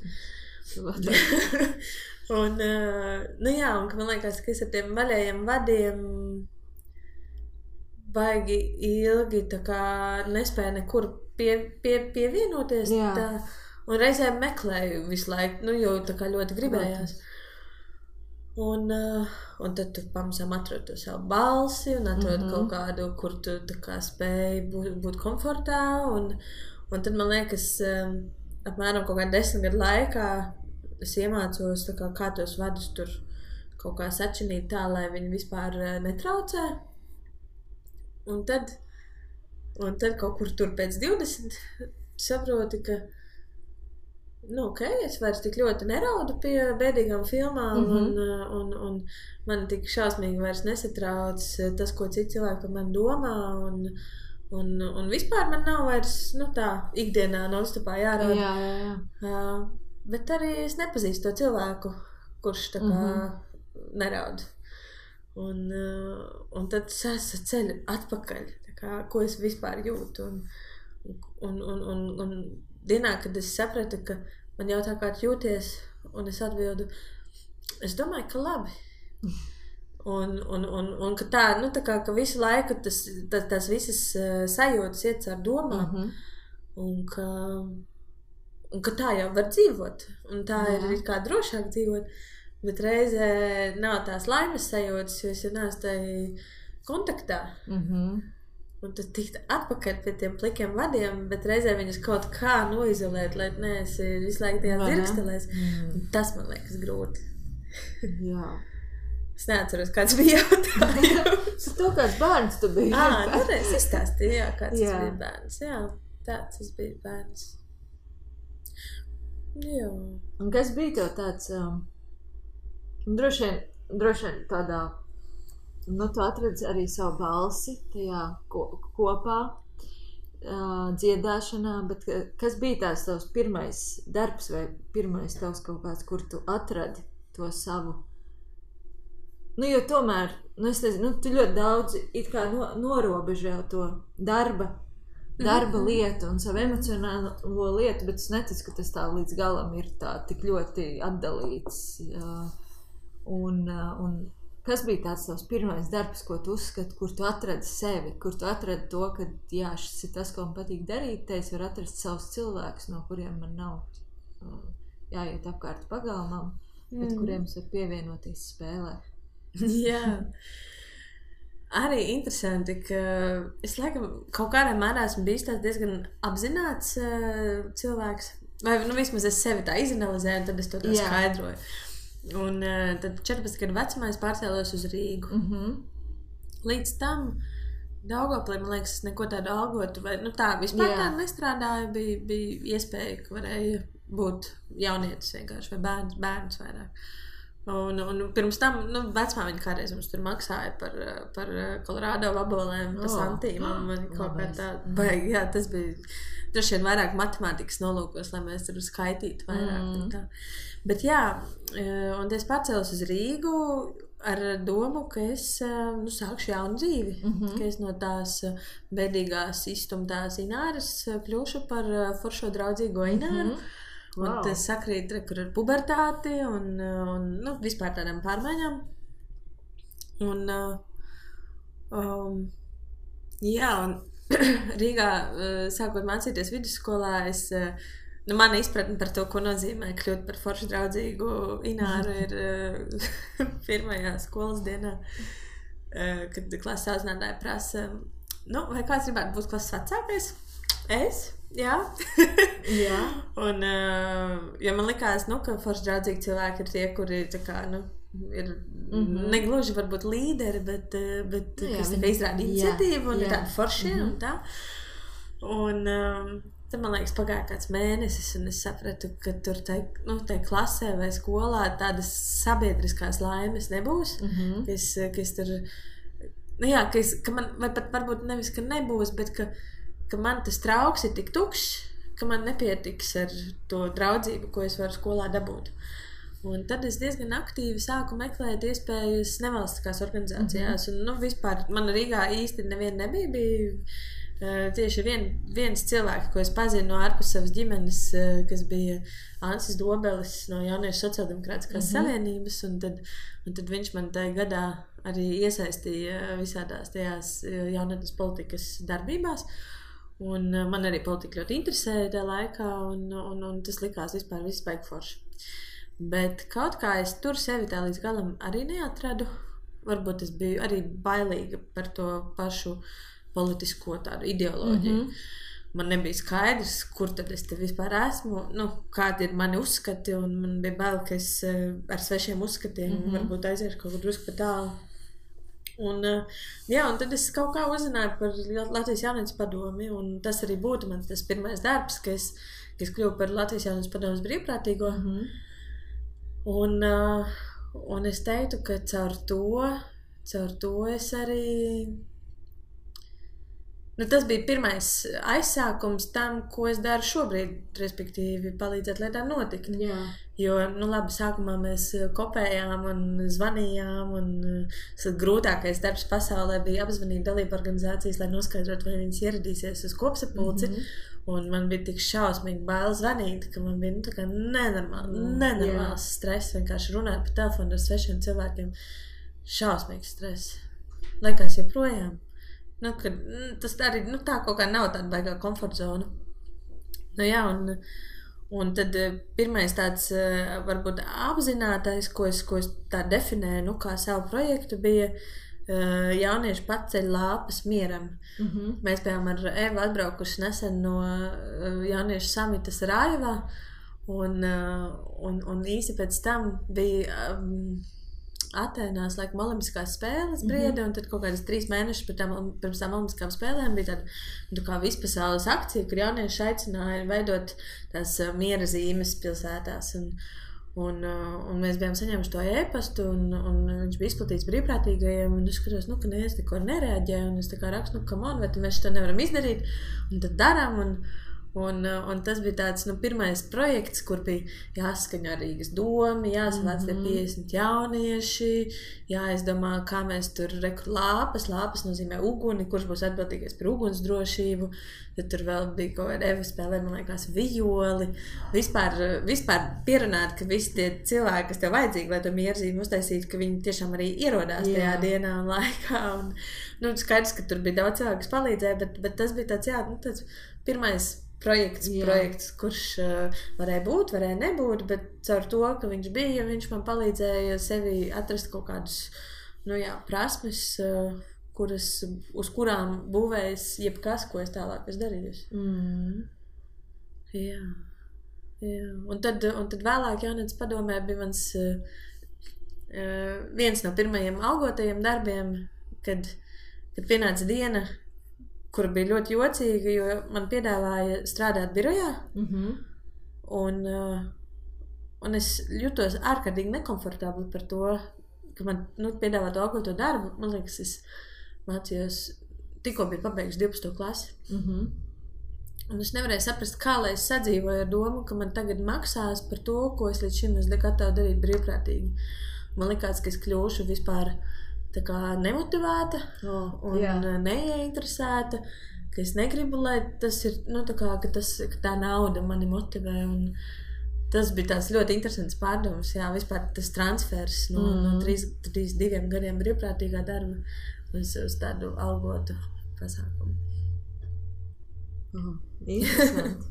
Un, un man liekas, ka es ar tiem vaļējiem vadiem baigi ilgi tā kā nespēju nekur pievienoties. Tā, un reizēm meklēju visu laiku, jo tā kā ļoti gribējās. Un tad tu pamazām atrod to savu balsi un atrod kaut kādu, kur tu tā kā spēji būt komfortā. Un tad man liekas, apmēram kaut kā 10 gadu laikā es iemācos tā kā tos vadus tur kaut kā sačinīt tā, lai viņi vispār netraucē. Un tad kaut kur tur pēc 20 saproti, ka es vairs tik ļoti neraudu pie bēdīgām filmām un man tik šausmīgi vairs nesatrauc tas, ko citi cilvēki par mani domā un vispār man nav vairs, tā ikdienā nonstopā jārauda. Jā. Bet arī es nepazīstu to cilvēku, kurš tā kā neraud. Un tad es ceļu atpakaļ, tā kā, ko es vispār jūtu. Un dienā, kad es sapratu, ka man jautā, kā tu jūties, un es atbildu, es domāju, ka labi. Un ka tā, tā kā, ka visu laiku tas visas sajūtas iet caur domām, un ka tā jau var dzīvot, un tā ir kā drošāk dzīvot. Bet reizē nav tās laimes sajūtas, jo es jau neesmu tai kontaktā. Un tad tikt atpakaļ pie tiem plikiem vadiem, bet reizē viņus kaut kā noizolēt, lai neesi visu laiku tajā dzirkstelēs. Tas man liekas grūti. Jā. Es neatceros, kāds bija jautājums. To kāds bērns tu biji. Es izstāstīju, kāds tas bija bērns. Jā, tāds es biju bērns. Jā. Un kas bija tev tāds... Droši vien tādā, tu atradzi arī savu balsi tajā kopā dziedāšanā, bet kas bija tās tavs pirmais darbs vai pirmais tavs kaut kāds, kur tu atradi to savu? Jo tomēr, es nezinu, tu ļoti daudz it kā norobežo to darba lietu un savu emocionālo lietu, bet es neticu, ka tas tā līdz galam ir tā tik ļoti atdalīts. Un kas bija tāds tavs pirmais darbs, ko tu uzskati, kur tu atradi sevi, kur tu atradi to, ka šis ir tas, ko man patīk darīt, te es varu atrast savus cilvēkus, no kuriem man nav jāiet apkārt pagalmam, bet kuriem es varu pievienoties spēlē. Jā. Arī interesanti, ka es laikam kaut kādā mērā esmu bijis tāds diezgan apzināts cilvēks, vai vismaz es sevi tā izanalizēju, un tad es to tā skaidroju. Un tad 14 gadu vecumā es pārcēlos uz Rīgu. Līdz tam Daugavpilī, man liekas, es neko tādu algotu, vai tā vispār tādu nestrādāju, bija iespēja, ka varēja būt jaunietis vienkārši, vai bērns vairāk. Un pirms tam, vecmāmiņa kādreiz mums tur maksāja par Kolorādo vabolēm, pa santīm, un man kaut kā tā baigi, tas bija droši vien vairāk matemātikas nolūkos, lai mēs tur skaitītu vairāk. Bet un es pārcēlos uz Rīgu ar domu, ka es sākšu jaunu dzīvi, ka es no tās bēdīgās izstumtās Ināras kļūšu par foršo draudzīgo Ināru. Un tas sakrīt, kur ar pubertāti un nu, vispār tādām pārmaiņām. Un, jā, un Rīgā, sākot mācīties vidusskolā, mana izpratne par to, ko nozīmē kļūt par foršu draudzīgu Ināru, ir pirmajā skolas dienā, kad klases audzinātāja prasa, vai kāds gribētu būt klases vecākais? Es? Jā. Jā. Un, jo man likās, ka forši draudzīgi cilvēki ir tie, kuri tā kā, ir negluži varbūt līderi, bet kas tā kā izrāda iniciatīvu un ir tādi foršie un tā. Un tad, man liekas, pagāja kāds mēnesis un es sapratu, ka tur tai klasē vai skolā tādas sabiedriskās laimes nebūs, kas tur, ka man, vai pat varbūt nevis, ka nebūs, bet ka man tas trauks ir tik tukšs, ka man nepietiks ar to draudzību, ko es varu skolā dabūt. Un tad es diezgan aktīvi sāku meklēt iespējas nevalstiskās organizācijās. Un, vispār man Rīgā īsti neviena nebija. Bija tieši viens cilvēks, ko es pazinu no ārpus savas ģimenes, kas bija Ansis Dobelis no Jauniešu sociāldemokrātiskās savienības. Un tad viņš man tajā gadā arī iesaistīja visādās tajās jaunatnes politikas darbībās. Un man arī politika ļoti interesēja tajā laikā, un tas likās vispār viss baigi forši. Bet kaut kā es tur sevi tā līdz galam arī neatradu. Varbūt es biju arī bailīga par to pašu politisko tādu ideoloģiju. Man nebija skaidrs, kur tad es te vispār esmu, kādi ir mani uzskati, un man bija bail, ka es ar svešiem uzskatiem varbūt aiziešu kaut kur drusku pa tālu. Un tad es kaut kā uzzināju par Latvijas jaunības padomi, un tas arī būtu mans tas pirmais darbs, ka es kļuvu par Latvijas jaunības padomes brīvprātīgo. Un es teiktu, ka caur to es arī... tas bija pirmais aizsākums tam, ko es daru šobrīd, respektīvi palīdzēt lietām notikt. Jā. Jo, labi, sākumā mēs kopējām un zvanījām, un grūtākais darbs pasaulē bija apzvanīt dalību organizācijas, lai noskaidrotu, vai viņas ieradīsies uz kopsapulci. Un man bija tik šausmīgi bail zvanīt, ka man bija tā kā nenormāls stress, vienkārši runāt pa telefonu ar svešiem cilvēkiem. Šausmīgs stress. Laikās joprojām. Tas arī tā kaut kā nav tāda baigā komforta zona. Un tad pirmais tāds varbūt apzinātais, ko es tā definēju, kā savu projektu, bija jaunieši paceļ lāpas mieram. Mēs bijām ar Evu atbraukuši nesen no jauniešu samitas Rājavā, un īsi pēc tam bija Atēnās, laikam, olimpiskās spēles brieda, un tad kaut kādas 3 mēnešus pirms tām olimpiskām spēlēm bija tāda kā vispasaules akcija, kur jaunieši aicināja veidot tās miera zīmes pilsētās. Un mēs bijām saņēmuši to e-pastu, un viņš bija izplatīts brīvprātīgajiem, un es skatos, ka neviens neko nereaģē, un es tā kā rakstu, come on, vai mēs to nevaram izdarīt, un tad darām, un tas bija tāds pirmais projekts, kur bija jāskaņo Rīgas domi, jāsavāc tie 50 jaunieši, jāizdomā, kā mēs tur lāpas nozīmē uguni, kurš būs atbildīgais par uguns drošību, tad tur vēl bija kaut kāda Eva spēlē, man liekas, vijoli, vispār pierunāt, ka visi tie cilvēki, kas tev vajadzīgi, lai to mierzīmi uztaisītu, ka viņi tiešām arī ierodās tajā dienā un laikā, un skaidrs, ka tur bija daudz cilvēku, kas palīdzēja, bet tas bija tāds, pirmais projekts, kurš varēja būt, varēja nebūt, bet caur to, ka viņš bija, viņš man palīdzēja sevi atrast kaut kādus, prasmes, uz kurām būvējas jebkas, ko es tālāk esmu darījusi. Jā. Un tad vēlāk jaunatnes padomē bija mans viens no pirmajiem algotajiem darbiem, kad pienāca diena, kur bija ļoti jocīga, jo man piedāvāja strādāt birojā, un es jutos ārkārtīgi nekomfortabli par to, ka man piedāvā to algoto darbu. Man liekas, es mācījos, tikko biju pabeigusi 12. klasi. Un es nevarēju saprast, kā lai es sadzīvoju ar domu, ka man tagad maksās par to, ko es līdz šim esmu gatava darīt brīvprātīgi. Man likās, ka es kļūšu vispār tā kā nemotivēta un neieinteresēta, ka es negribu, lai tas ir, ka tā nauda mani motivē. tas bija tās ļoti interesants pārdomas, jā, vispār tas transfers no 32 gadiem brīvprātīgā darba uz tādu algotu pasākumu. Interesanti.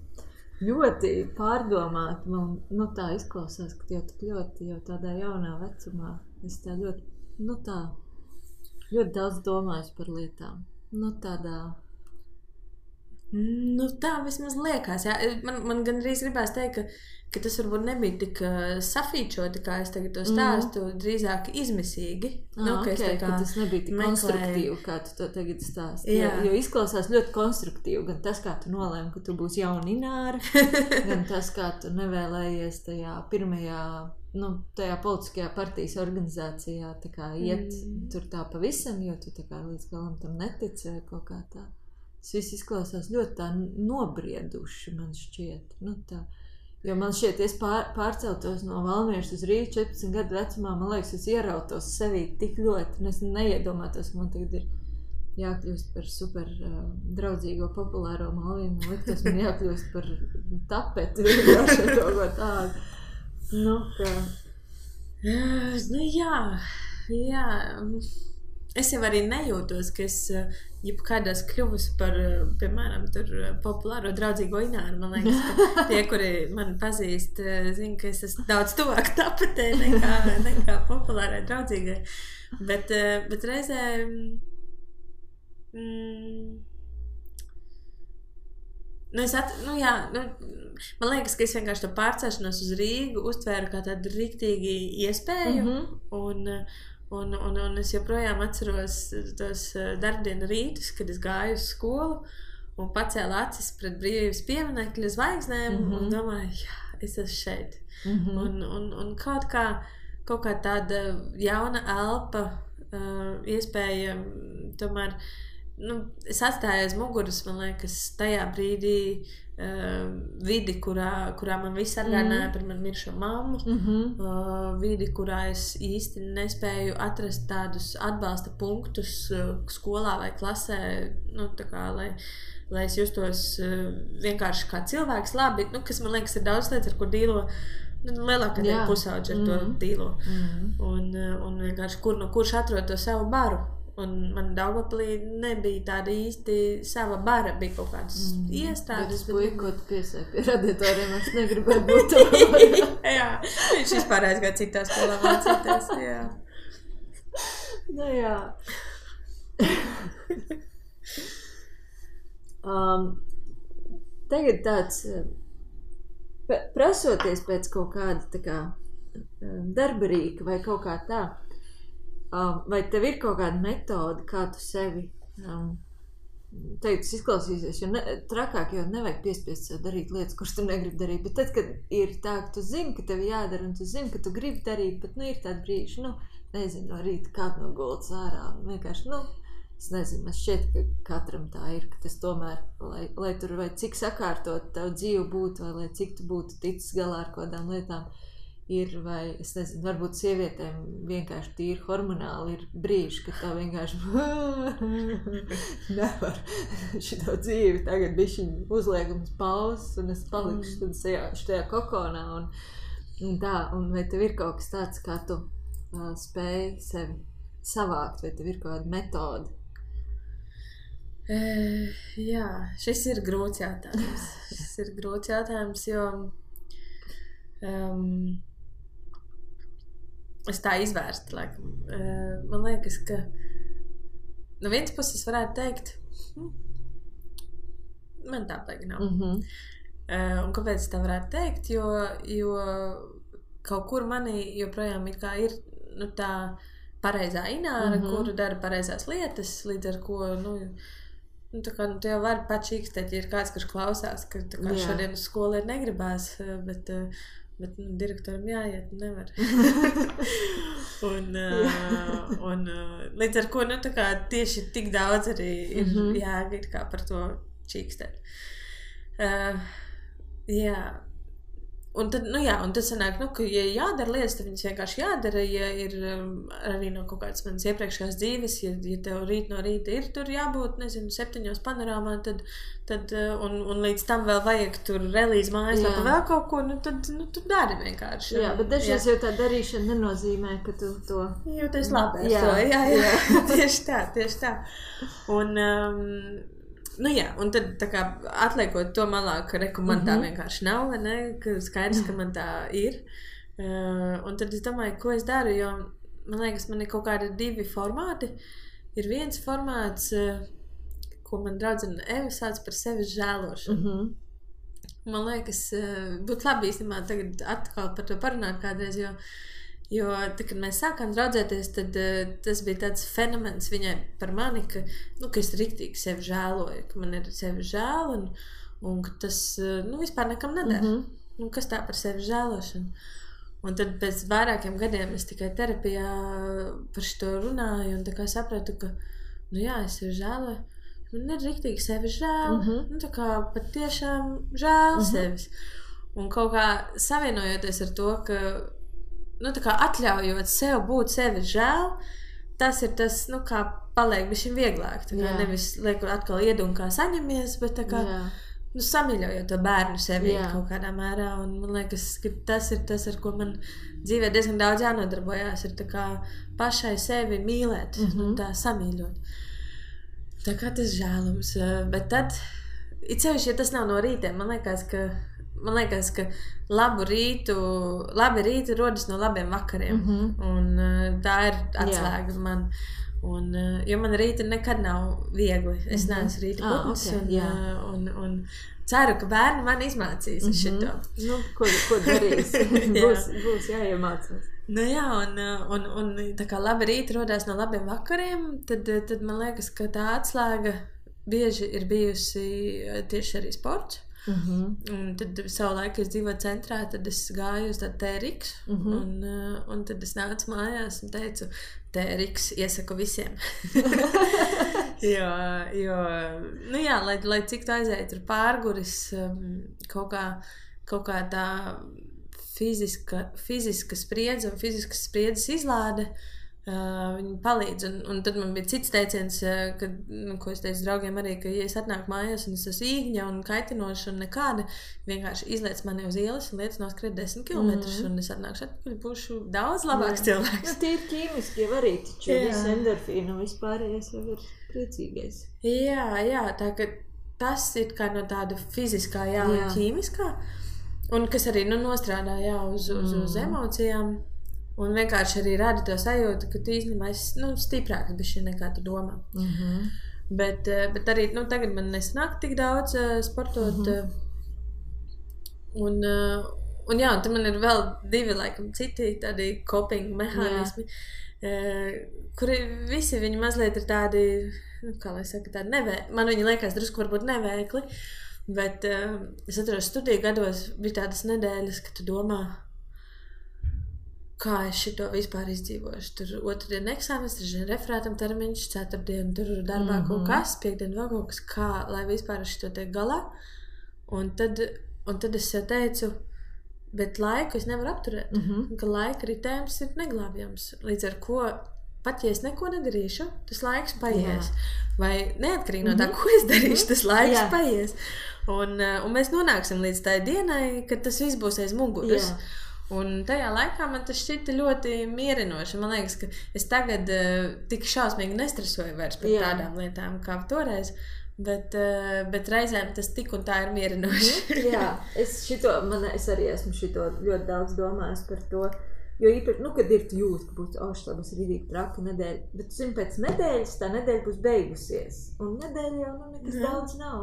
Ļoti pārdomāt, man tā izklausās, ka jau tik ļoti jau tādā jaunā vecumā es tā ļoti daudz domāju par lietām. Tā vismaz liekas, jā. Man gandrīz gribās teikt, ka tas varbūt nebija tik safīčoti, kā es tagad to stāstu, drīzāk izmisīgi. Ka tas nebija tik konstruktīvi, kā tu to tagad stāsti. Jo izklausās ļoti konstruktīvi, gan tas, kā tu nolēmi, ka tu būsi jauna Ināra, gan tas, kā tu nevēlējies tajā pirmajā, tajā politiskajā partijas organizācijā tā kā iet tur tā pavisam, jo tu tā kā līdz galam tam netici vai kaut kā tā. Tas viss izklausās ļoti tā nobrieduši, man šķiet. Jo man šķiet, es pārceltos no Valmieras uz Rīgu 14 gadu vecumā, man liekas, es ierautos sevī tik ļoti, un es neiedomātos, ka man tagad ir jākļūst par super draudzīgo, populāro Malvīnu. Man liktos, man jākļūst par tapeti, vienkārši kaut ko tādu. Jā. Es jau arī nejūtos, ka es jebkādās kļuvusi par, piemēram, tur populāro draudzīgo Ināru. Man liekas, ka tie, kuri mani pazīst, zina, ka es esmu daudz tuvāk tapetē nekā populārai draudzīgai. Bet reizē man liekas, ka es vienkārši to pārcelšanos uz Rīgu uztvēru kā tādu riktīgi iespēju, un es joprojām atceros tos darbdienu rītus, kad es gāju uz skolu un pacēlu acis pret brīvības pieminekļa zvaigznēm un domāju, jā, es esmu šeit. Un kaut kā tāda jauna elpa, iespēja tomēr, es atstāju aiz muguras, man liekas, tajā brīdī vidi, kurā man viss atgādināja par man miršo mammu, vidi, kurā es īsti nespēju atrast tādus atbalsta punktus skolā vai klasē, lai es justos vienkārši kā cilvēks labi, kas man liekas ir daudz lietas, ar ko dīlo lielākā daļa pusauģi ar to dīlo. Un vienkārši kurš atrod to savu baru. Un man Daugavpilī nebija tāda īsti sava bara, bija kaut kādas iestādes. Bet puika, ko tu piesēji pie radiatoriem, es negribēju būt to. Jā, viņš vispār aizgāja citā skolā mācīties, jā. Jā. Tagad tāds, prasoties pēc kaut kāda tā kā darba rīka vai kaut kā tā, vai tev ir kaut kāda metode, kā tu sevi, tas izklausīsies, jo trakāk jau nevajag piespiest sev darīt lietas, kuras tu negribi darīt, bet tad, kad ir tā, ka tu zini, ka tev jādara, un tu zini, ka tu gribi darīt, bet, ir tādi brīži, nezinu, no rīta kāp no gultas ārā, un vienkārši, es nezinu, man šķiet, ka katram tā ir, ka tas tomēr, lai tur vai cik sakārtot tavu dzīvi būtu, vai lai cik tu būtu ticis galā ar kādām lietām, ir, vai, es nezinu, varbūt sievietēm vienkārši tīri hormonāli ir brīži, kad tā vienkārši nevar šito dzīvi, tagad bišķiņ uzliekums pauzes, un es palikšu tad šajā kokonā, un tā, un vai tev ir kaut kas tāds, kā tu spēj sevi savākt, vai tev ir kaut kāda metode? Jā, šis ir grūts jautājums, jo es tā izvērstu, laikam. Man liekas, ka no vienas puses varētu teikt, man tā baigi nav. Un kāpēc es tā varētu teikt? Jo kaut kur manī joprojām ir tā pareizā Ināra, kuru dara pareizās lietas, līdz ar ko, tu jau vari pačīkstēt, ja ir kāds, kurš klausās, ka šodien uz skolu ir negribās, bet direktoram jāiet, nevar. un līdz ar ko, tieši tik daudz arī ir jāgīt kā par to čīkstēt. Jā. Un tad, un tad sanāk, ka, ja jādara lietas, tad viņas vienkārši jādara, ja ir arī no kaut kādas manas iepriekšējās dzīves, ja tev rīt no rīta ir tur jābūt, 7 panorāmā, tad un līdz tam vēl vajag tur relīzi mājaslapā vēl kaut ko, tu dari vienkārši. Jā, bet dažreiz jau tā darīšana nenozīmē, ka tu to... Jūties labi ar to, jā. Tieši tā. Un... un tad tā kā atliekot to malā, ka man tā vienkārši nav, vai ne, ka skaidrs, ka man tā ir. Un tad es domāju, ko es daru, jo man liekas, man ir kaut kādi 2 formāti. Ir viens formāts, ko man draudzene Eva sauc par sevis žēlošanu. Man liekas, būtu labi īstenībā tagad atkal par to parunāt kādreiz, jo tad, kad mēs sākām draudzēties, tad tas bija tāds fenomens viņai par mani, ka es riktīgi sevi žēloju, ka man ir sevi žēl un ka tas vispār nekam nedara. Kas tā par sevi žēlošanu? Un tad pēc vairākiem gadiem es tikai terapijā par šito runāju un tā kā sapratu, ka es sevi žēloju. Man ir riktīgi sevi žēl. Tā kā pat tiešām žēl sevis. Un kaut kā savienojoties ar to, ka tā kā atļaujot sev būt sevi žēl, tas ir tas, kā paliek bišķiņ vieglāk. Tā kā nevis lieku atkal iedu un kā saņemies, bet tā kā samīļojot to bērnu sevi kaut kādā mērā. Un man liekas, ka tas ir tas, ar ko man dzīvē diezgan daudz jānodarbojās, ir tā kā pašai sevi mīlēt, tā samīļot. Tā kā tas žēlums. Bet tad, it sevišķi, ja tas nav no rītiem, man liekas, ka labi rīti rodas no labiem vakariem. Un tā ir atslēga man. Un, jo man rīti nekad nav viegli. Es neesmu rīta putns. Un ceru, ka bērni man izmācīs šito. Ko darīs? būs jāiemācās. Un tā kā labi rīti rodās no labiem vakariem, tad man liekas, ka tā atslēga bieži ir bijusi tieši arī sports. Un tad savu laiku es dzīvoju centrā, tad es gāju uz tādu TRX un tad es nācu mājās un teicu, TRX iesaku visiem. Lai cik tu aizēji tur pārguris, kaut kā tā fiziska spriedze un fiziskas spriedzes izlāde, viņi palīdz. Un tad man bija cits teiciens, ko es teicu draugiem arī, ka ja es atnāku mājās un es esmu īgņa un kaitinoša un nekāda, vienkārši izliec mani uz ielas un liec noskriet 10 kilometrus un es atnākšu atpakaļ, būšu daudz labāks cilvēks. Tīri ķīmiski jau arī taču visu endorfīnu un vispārējais jau ir priecīgais. Jā, tā ka tas ir kā no tāda fiziskā, un ķīmiskā, un kas arī nostrādā uz emocijām. Un vienkārši arī rada to sajūtu, ka tu īstenībā esi stiprāks bišķi nekā tu domā. Bet arī tagad man nesanāk tik daudz sportot. Un tad man ir vēl 2 laikam citi tādi coping mehānismi, kuri visi viņi mazliet ir tādi, kā lai saka, tādi nevēkli. Man viņi liekas drusku varbūt nevēkli, bet es atceros studiju gados bija tādas nedēļas, ka tu domā, kā es šito vispār izdzīvošu. Tur 2. dienu eksāmenes, 3. dienu referātam termiņš, 4. dienu tur darbā kaut kas, 5. dienu vēl kaut kas, kā, lai vispār es šito tiek galā. Un tad es teicu, bet laiku es nevaru apturēt, ka laika ritējums ir neglābjams. Līdz ar ko, pat ja es neko nedarīšu, tas laiks paies. Vai neatkarīgi no tā, ko es darīšu, tas laiks paies. Un mēs nonāksim līdz tai dienai, kad tas viss būs aiz muguras. Un tajā laikā man tas šķita ļoti mierinoši. Man liekas, ka es tagad tik šausmīgi nestresoju vairs par tādām lietām kā toreiz, bet reizēm tas tik un tā ir mierinoši. Es arī esmu šito ļoti daudz domājis par to, jo īpaši, kad ir tu jūt, ka būs, tas ir rīdīgi traka nedēļa, bet tu zini, pēc nedēļas tā nedēļa būs beigusies, un nedēļa jau nekas daudz nav.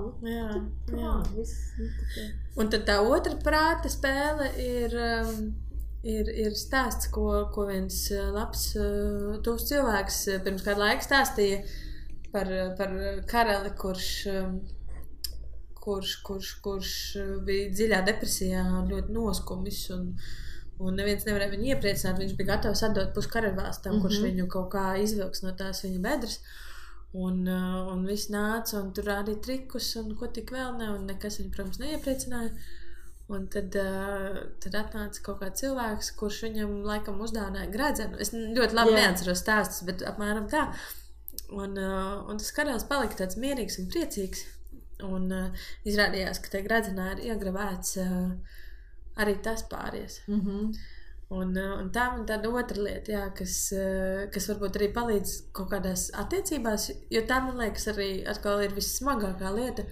Un tad tā otra prāta spēle ir stāsts, ko viens labs tuvs cilvēks pirms kādu laiku stāstīja par karali, kurš bija dziļā depresijā un ļoti noskumis un neviens nevarēja viņu iepriecināt. Viņš bija gatavs atdot pusi karaļvalstam, kurš viņu kaut kā izvilks no tās viņa bedres. Un viss nāca un tur rādīja trikus un ko tik vēl ne, un nekas viņu, protams, neiepriecināja. Un tad atnāca kaut kāds cilvēks, kurš viņam laikam uzdāvināja gredzenu. Es ļoti labi neatceros stāstus, bet apmēram tā. Un tas karalis palika tāds mierīgs un priecīgs. Un izrādījās, ka tajā gredzenā ir iegravēts arī tas pāries. Un tā man tāda otra lieta, jā, kas varbūt arī palīdz kaut kādās attiecībās, jo tā, man liekas, arī atkal ir vissmagākā lieta.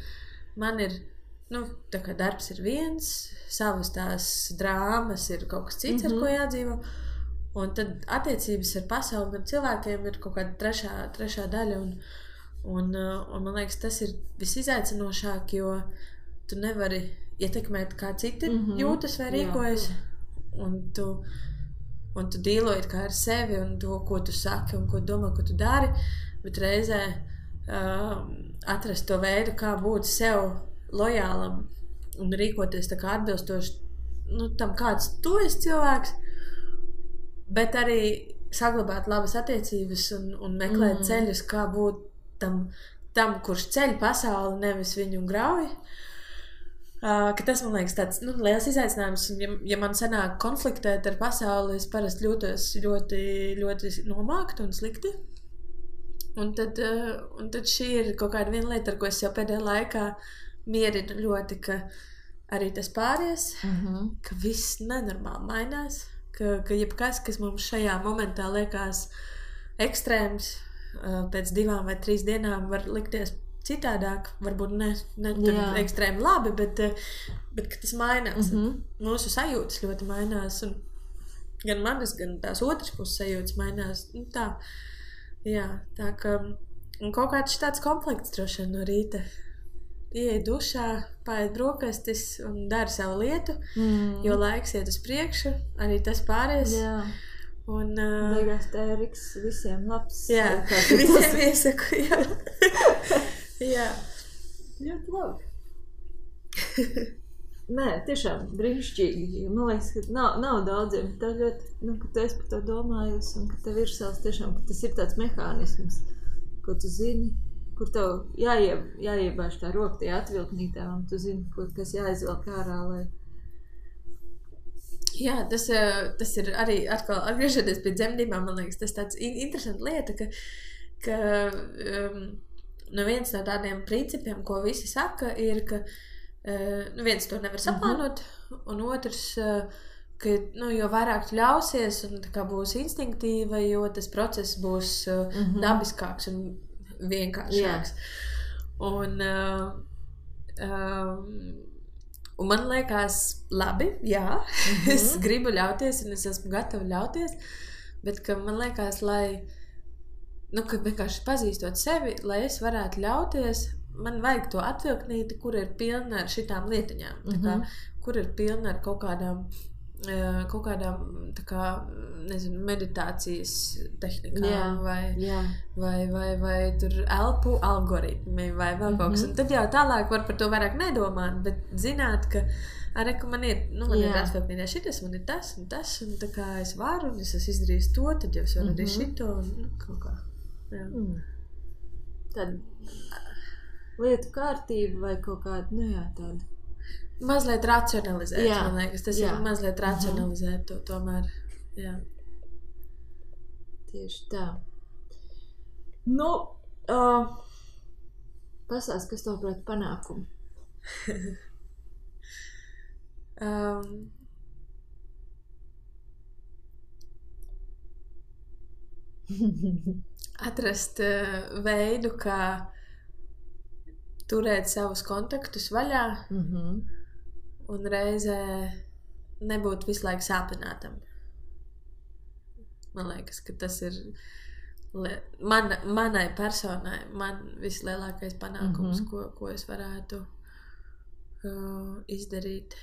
Man ir, tā kā darbs ir viens, savas tās drāmas ir kaut kas cits, ar ko jādzīvo, un tad attiecības ar pasauli, ar cilvēkiem ir kaut kāda trešā daļa, un man liekas, tas ir visizaicinošāk, jo tu nevari ietekmēt, kā citi jūtas vai rīkojas, un tu dīloji kā ar sevi un to, ko tu saki un ko domā, ko tu dari, bet reizē atrast to veidu, kā būt sev lojālam un rīkoties tā kā atbilstoši tam, kāds tu esi cilvēks, bet arī saglabāt labas attiecības un meklēt ceļus, kā būt tam, kurš ceļ pasauli, nevis viņu grauj. Ka tas, man liekas, tāds liels izaicinājums, un ja man sanāk konfliktēt ar pasauli, es parasti jūtos ļoti, ļoti nomākti un slikti. Un tad šī ir kaut kāda viena lieta, ar ko es jau pēdējā laikā mierinu ļoti, ka arī tas pāries, ka viss nenormāli mainās, ka jebkas, kas mums šajā momentā liekas ekstrēms, pēc 2 vai 3 dienām var likties citādāk, varbūt ne ekstrēmi labi, bet ka tas mainās. Mūsu sajūtas ļoti mainās, un gan manas, gan tās otras puses sajūtas mainās. Tā ka kaut kāds tāds konflikts droši vien no rīta. Ieej dušā, paēd brokastis un dari savu lietu, jo laiks iet uz priekšu, arī tas pāries. Un beigās tēriks visiem labs. Jā, visiem iesaku, jā. Jā. Ļoti labi. Nē, tiešām brīnišķīgi. Man liekas, ka nav daudziem. Tā ļoti, ka tu esi par to domājusi un ka tev ir savs tiešām, ka tas ir tāds mehānisms, ko tu zini, kur tev jāiebāž tā roka tajā atvilknītā un tu zini, kas jāizvelk ārā, lai... Jā, tas ir arī atkal atgriežoties pie dzemdībām, man liekas, tas tāds interesanta lieta, ka viens no tādiem principiem, ko visi saka, ir, ka viens to nevar saplānot, un otrs, ka jo vairāk tu ļausies un tā kā būs instinktīva, jo tas process būs dabiskāks un vienkāršāks. Un man liekas, labi, jā, es gribu ļauties un es esmu gatava ļauties, bet ka man liekas, ka vienkārši pazīstot sevi, lai es varētu ļauties, man vajag to atvilknīti, kur ir pilna ar šitām lietiņām, kur ir pilna ar kaut kādām tā kā, nezinu, meditācijas tehnikām vai tur elpu algoritmi vai vēl kaut kas. Un tad jau tālāk var par to vairāk nedomāt, bet zināt, ka arī, ka man ir, man ir atvilknītē šitas, man ir tas, un tā kā es varu, un es esmu izdarījis to, tad jau es varu arī šito, un kaut kā. Tad lietu kārtība vai kaut kāda, tāda. Mazliet racionalizēt, man liekas, tas ir mazliet racionalizēt to tomēr, jā. Tieši tā. Pasāst, kas tev prāt panākumu? Atrast veidu, kā turēt savus kontaktus vaļā un reizē nebūt visu laiku sāpinātam. Man liekas, ka tas ir manai personai, man vislielākais panākums, ko es varētu izdarīt.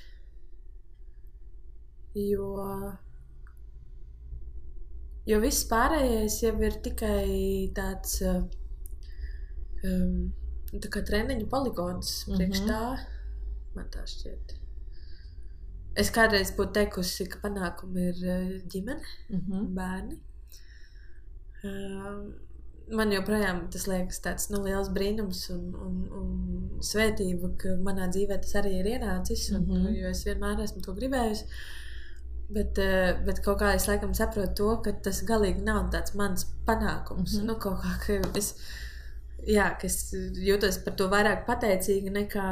Jo viss pārējais jau ir tikai tāds tā kā treniņu poligons priekš tā, man tā šķiet. Es kādreiz būtu teikusi, ka panākumi ir ģimene, bērni. man joprojām tas liekas tāds liels brīnums un svētība, ka manā dzīvē tas arī ir ienācis, jo es vienmēr esmu to gribējusi. Bet kaut kā es laikam saprotu to, ka tas galīgi nav tāds mans panākums. Kaut kā, ka es jūtos par to vairāk pateicīga nekā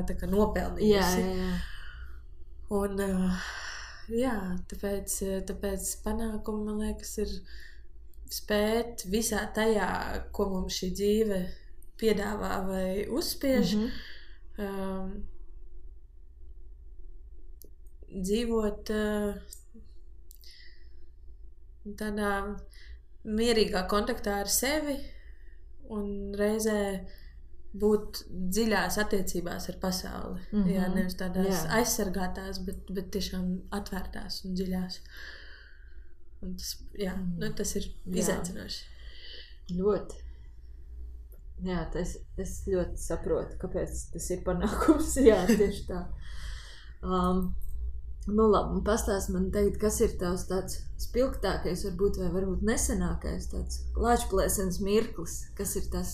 tā kā nopelnījusi. Un, tāpēc panākumi, man liekas, ir spēt visā tajā, ko mums šī dzīve piedāvā vai uzspiež, dzīvot tādā mierīgā kontaktā ar sevi un reizē būt dziļās attiecībās ar pasauli. Jā, nevis tādās aizsargātās, bet tiešām atvērtās un dziļās. Un tas, tas ir izaicinoši. Ļoti. Jā, es ļoti saprotu, kāpēc tas ir panākums. Jā, tieši tā. Labi, pastāst man tagad, kas ir tavs tāds spilgtākais, varbūt nesenākais tāds lāčplēsenes mirklis, kas ir tas,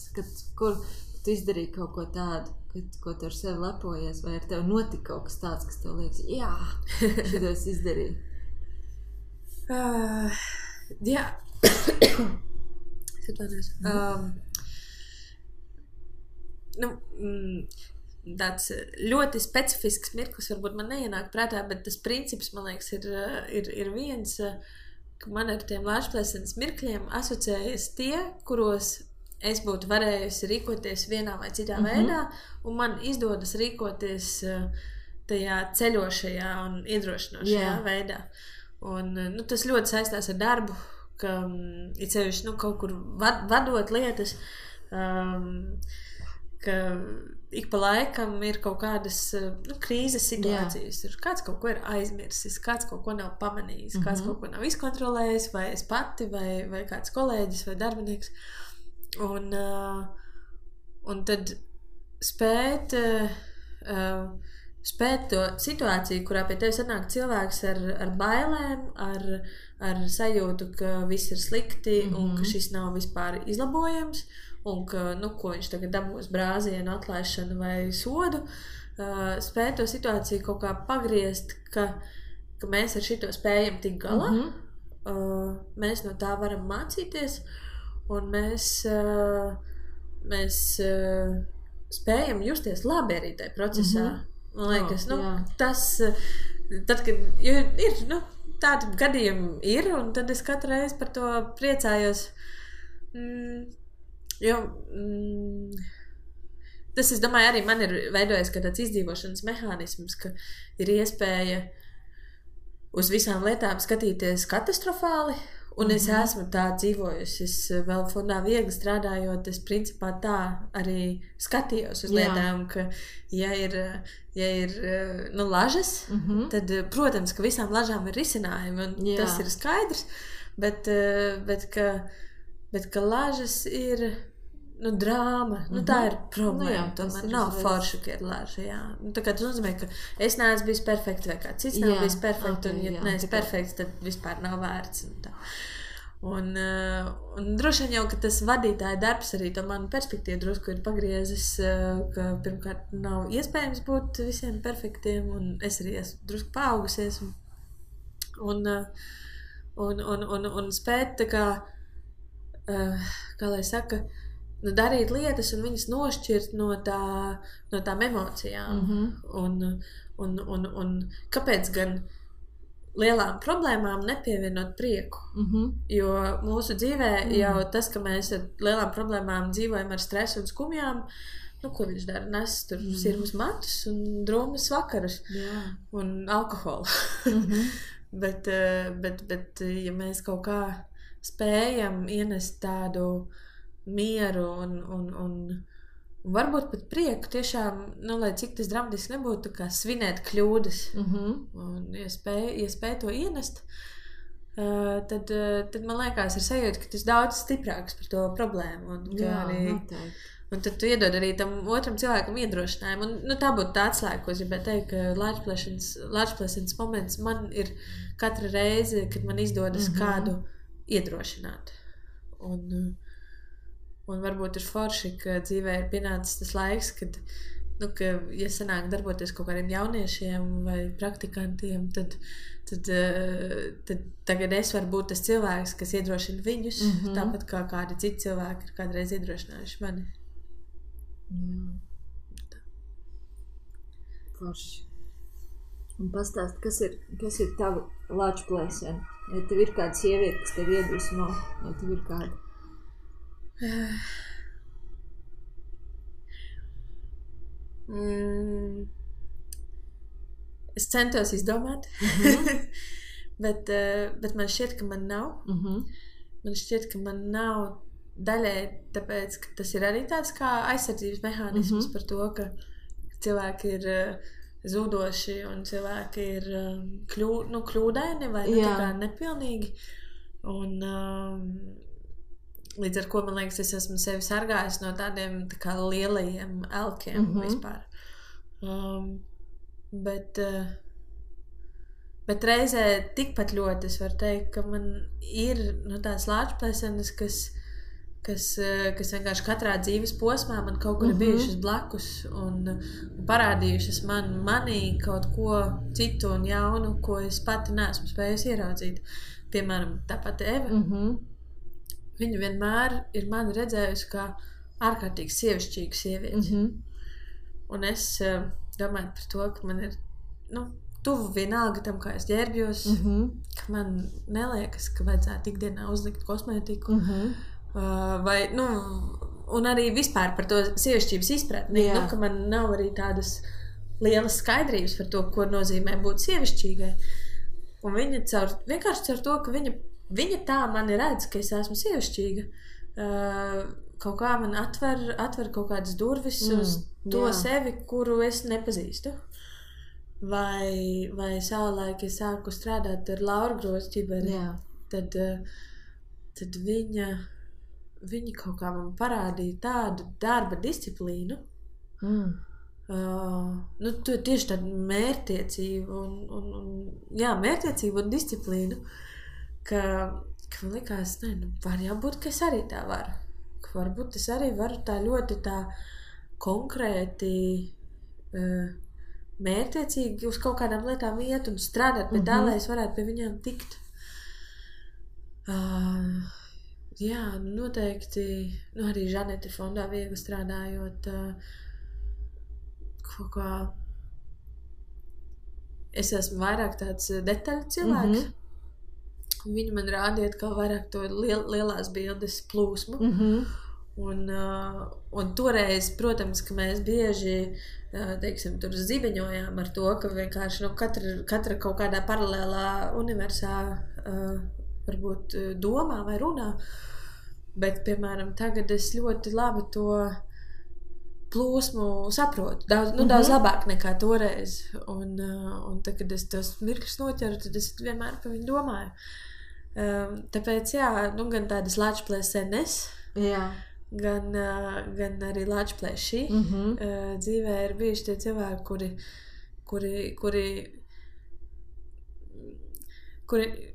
kur tu izdarīji kaut ko tādu, ko tu ar sevi lepojies, vai ar tevi notika kaut kas tāds, kas tev liekas, jā, šito es izdarīju. Jā. Tāds ļoti specifisks mirklis varbūt man neienāk prātā, bet tas princips, man liekas, ir viens, ka man ar tiem lāčplēsenes mirkļiem asociējas tie, kuros es būtu varējusi rīkoties vienā vai citā veidā, un man izdodas rīkoties tajā ceļošajā un iedrošinošajā veidā. Un tas ļoti saistās ar darbu, ka ir sevišķi kaut kur vadot lietas, ka ik pa laikam ir kaut kādas krīzes situācijas. Kāds kaut ko ir aizmirsis, kāds kaut ko nav pamanījis, kāds kaut ko nav izkontrolējis, vai es pati, vai kāds kolēģis vai darbinieks. Un tad spēt to situāciju, kurā pie tevis atnāk cilvēks ar bailēm, ar sajūtu, ka viss ir slikti un ka šis nav vispār izlabojams, un ka, ko viņš tagad dabūs brāzienu, atlaišanu vai sodu, spēt to situāciju kaut kā pagriezt, ka mēs ar šito spējam tik galā, mēs no tā varam mācīties, un mēs spējam justies labi arī tajā procesā. Man liekas, tas, tad, kad ir, tādi gadījumi ir, un tad es katru reizi par to priecājos, jo tas, es domāju, arī man ir veidojis kā tāds izdzīvošanas mehānisms, ka ir iespēja uz visām lietām skatīties katastrofāli, un es esmu tā dzīvojusi. Es vēl fondā viegli strādājot, es principā tā arī skatījos uz lietām, ka ja ir lažas, tad, protams, ka visām lažām ir risinājumi, un tas ir skaidrs, bet ka lažas ir drāma, tā ir problēma, tomēr nav forša, ka ir laža, tā kā tas nozīmē, ka es neesmu bijis perfekts, vai kāds cits nav bijis perfekts, un ja neesmu perfekts, tad vispār nav vērts, un droši vien jau, ka tas vadītāja darbs arī to manu perspektīvu drusku ir pagriezis, ka pirmkārt nav iespējams būt visiem perfektiem, un es arī esmu drusku paaugusies, un spēt tā kā lai saka, darīt lietas un viņas nošķirt no tām emocijām. Un kāpēc gan lielām problēmām nepievienot prieku? Jo mūsu dzīvē jau tas, ka mēs ar lielām problēmām dzīvojam ar stresu un skumjām, ko viņš dara? Nes tur sirmas matus un drūmas vakarus un alkoholu. bet, ja mēs kaut kā spējam ienest tādu mieru un varbūt pat prieku tiešām, lai cik tas dramatiski nebūtu, kā svinēt kļūdas. Un, ja spēj to ienest, tad man liekas ir sajūta, ka tas daudz stiprāks par to problēmu. Un tad tu iedod arī tam otram cilvēkam iedrošinājumu. Un, tā būtu tā atslēga, ko es gribēju teikt, ka lāčplēsenes moments man ir katra reize, kad man izdodas kādu iedrošināt. Un varbūt ir forši, ka dzīvē ir pienācis tas laiks, kad, ka ja sanāk darboties kaut kādiem jauniešiem vai praktikantiem, tad tagad es varu būt tas cilvēks, kas iedrošina viņus, tāpat kā kādi citi cilvēki ir kādreiz iedrošinājuši mani. Forši. Un pastāst, kas ir tava lāču plēsēna? Vai tev ir kāda sieviete, kas tev iedvesmo? Vai tev ir kāda? Es centos izdomāt, bet man šķiet, ka man nav. Man šķiet, ka man nav daļai, tāpēc, ka tas ir arī tāds kā aizsardzības mehānisms par to, ka cilvēki ir zudoši un cilvēki ir kļūdaini vai tā kā nepilnīgi. Un līdz ar ko, man liekas, es esmu sevi sargājis no tādiem tā kā lielajiem elkiem vispār. Bet reizē tikpat ļoti es varu teikt, ka man ir tās lāčplēsenes, kas vienkārši katrā dzīves posmā man kaut kur ir bijušas blakus un parādījušas manī kaut ko citu un jaunu, ko es pati neesmu spējusi ieraudzīt. Piemēram, tāpat Eva. Viņa vienmēr ir mani redzējusi kā ārkārtīgi sievišķīgu sievieti. Un es domāju par to, ka man ir tuvu vienalga tam, kā es ģērbjos, ka man neliekas, ka vajadzētu ikdienā uzlikt kosmētiku. Un arī vispār par to sievišķības izpratni, ka man nav arī tādas lielas skaidrības par to, ko nozīmē būt sievišķīgai. Un viņa vienkārši caur to, ka viņa tā mani redz, ka es esmu sievišķīga, kaut kā man atver kaut kādas durvis uz to sevi, kuru es nepazīstu. Vai savulaik es sāku strādāt ar Lauru Grozķiberi, tad viņa kaut kā man parādīja tādu darba disciplīnu, tieši tādu mērķtiecību mērķtiecību un disciplīnu, ka man likās, var jābūt, ka es arī tā varu. Ka varbūt es arī varu tā ļoti tā konkrēti mērķtiecīgi uz kaut kādām lietām iet un strādāt pie tā, lai es varētu pie viņām tikt. Noteikti, arī Žanete fondā viegli strādājot, kaut kā es esmu vairāk tāds detaļu cilvēks. Viņi man rādīja atkal vairāk to lielās bildes plūsmu. Un toreiz, protams, ka mēs bieži, tur zibeņojām ar to, ka vienkārši katra kaut kādā paralēlā universā varbūt domā vai runā. Bet, piemēram, tagad es ļoti labi to plūsmu saprotu. Daudz labāk nekā toreiz. Un tad, kad es tos mirkļus noķeru, tad es vienmēr par viņu domāju. Tāpēc, gan tādas lāčplēsenes, gan arī lāčplēši. Dzīvē ir bijuši tie cilvēki, kuri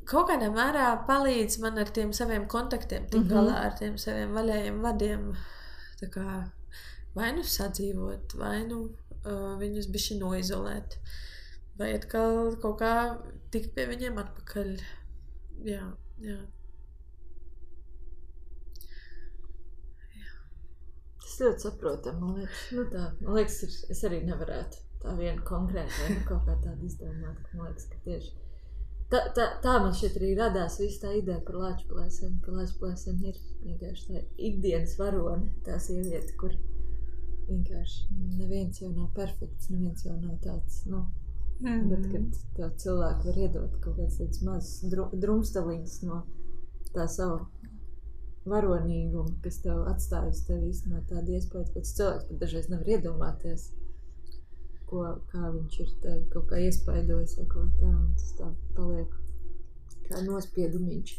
kaut kādā mērā palīdz man ar tiem saviem kontaktiem, tik galā ar tiem saviem vaļējiem vadiem, tā kā vai sadzīvot, vai viņus bišķi noizolēt, vai atkal kaut kā tikt pie viņiem atpakaļ. Jā. Tas ļoti saprotam, man liekas. Es arī nevarētu tā vienu konkrētu vai kaut kā tādu izdomāt, ka man liekas, ka tieši tā man šeit arī radās visa tā ideja par lāčplēseni, ka lāčplēseni ir vienkārši tā ikdienas varone, tā sieviete, kur vienkārši neviens jau nav perfekts, neviens jau nav tāds, bet kad tā cilvēki var iedot kaut kāds tāds mazs drumstaliņas no tā savu varonīgumu, kas tev atstājas tev īstenībā tādu iespēju, ka cilvēks pat dažreiz nevar iedomāties, kā viņš ir tevi kaut kā iespaidojis vai kaut tā, un tas tā paliek kā nospiedumiņš.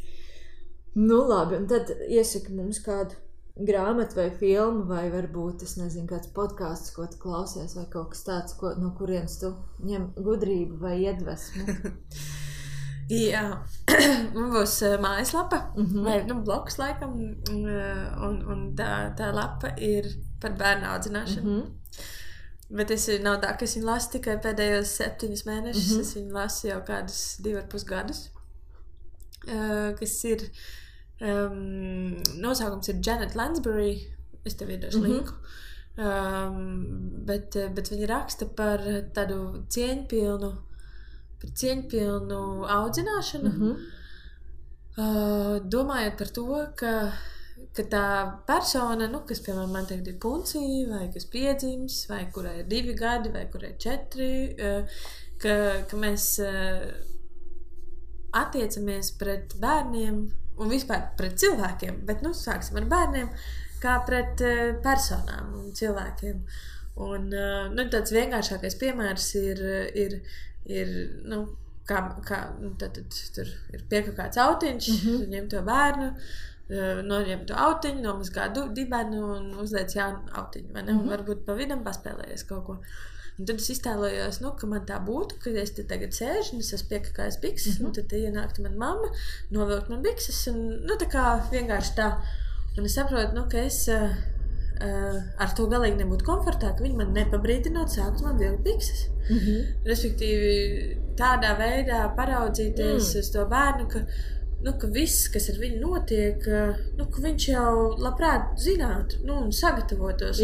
Labi, un tad iesaki mums kādu grāmatu vai filmu, vai varbūt, es nezinu, kāds podcasts, ko tu klausies, vai kaut kas tāds, no kurienes tu ņem gudrību vai iedvesmu. Jā, man būs mājaslapa, vai blogs laikam, un tā lapa ir par bērnu audzināšanu. Bet nav tā, ka es viņu lasu tikai pēdējos 7 mēnešus, es viņu lasu jau kādus 2,5 gadus, kas ir, nosaukums ir Janet Lansbury, es tev iedošu linku, bet viņa raksta par tādu cieņpilnu audzināšanu, domājot par to, ka tā persona, kas, piemēram, man tagad ir puncija, vai kas piedzims, vai kurai ir 2 gadi, vai kurai ir 4, ka mēs attiecamies pret bērniem un vispār pret cilvēkiem, bet, sāksim ar bērniem, kā pret personām un cilvēkiem. Un, tāds vienkāršākais piemērs ir tad tur ir piekakāts autiņš, ņem to bērnu, noņem to autiņu, nomazgā dibenu un uzliec jaunu autiņu, vai ne? Un varbūt pa vidam paspēlējies kaut ko. Un tad es iztēlojos, ka man tā būtu, ka es te tagad sēžu un es esmu piekakājis bikses, un tad ienāktu man mamma, novilkt man bikses, un tā kā vienkārši tā. Un es saprotu, ka es ar to galīgi nebūtu komfortā, ka viņi man nepabrīdinot sākt man vilkt bikses. Respektīvi, tādā veidā paraudzīties uz to bērnu, ka viss, kas ar viņu notiek, ka viņš jau labprāt zinātu, un sagatavotos.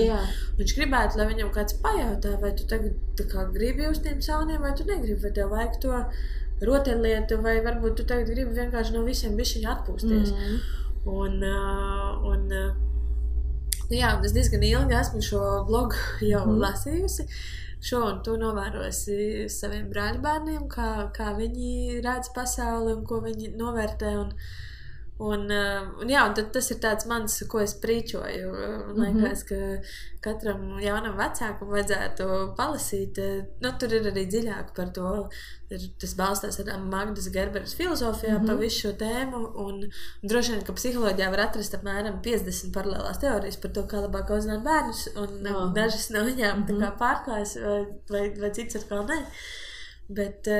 Viņš gribētu, lai viņam kāds pajautā, vai tu tagad tā kā gribi uz tiem sauniem, vai tu negribi, vai tev vajag to rotaļlietu, vai varbūt tu tagad gribi vienkārši no visiem bišķiņi atpūsties. Un es diezgan ilgi esmu šo blogu jau lasījusi. Šo un tu novērosi saviem brāļbērniem, kā viņi redz pasauli un ko viņi novērtē. Un tad tas ir tāds mans, ko es prīčoju. Liekas, ka katram jaunam vecākam vajadzētu palasīt. Tur ir arī dziļāk par to. Tas balstās ar Magdas Gerberas filozofijā pa visu šo tēmu. Un droši vien, ka psiholoģijā var atrast apmēram 50 paralēlās teorijas par to, kā labāk audzināt bērnus. Un dažas no viņām tā kā pārklājas vai cits atkal ne. Bet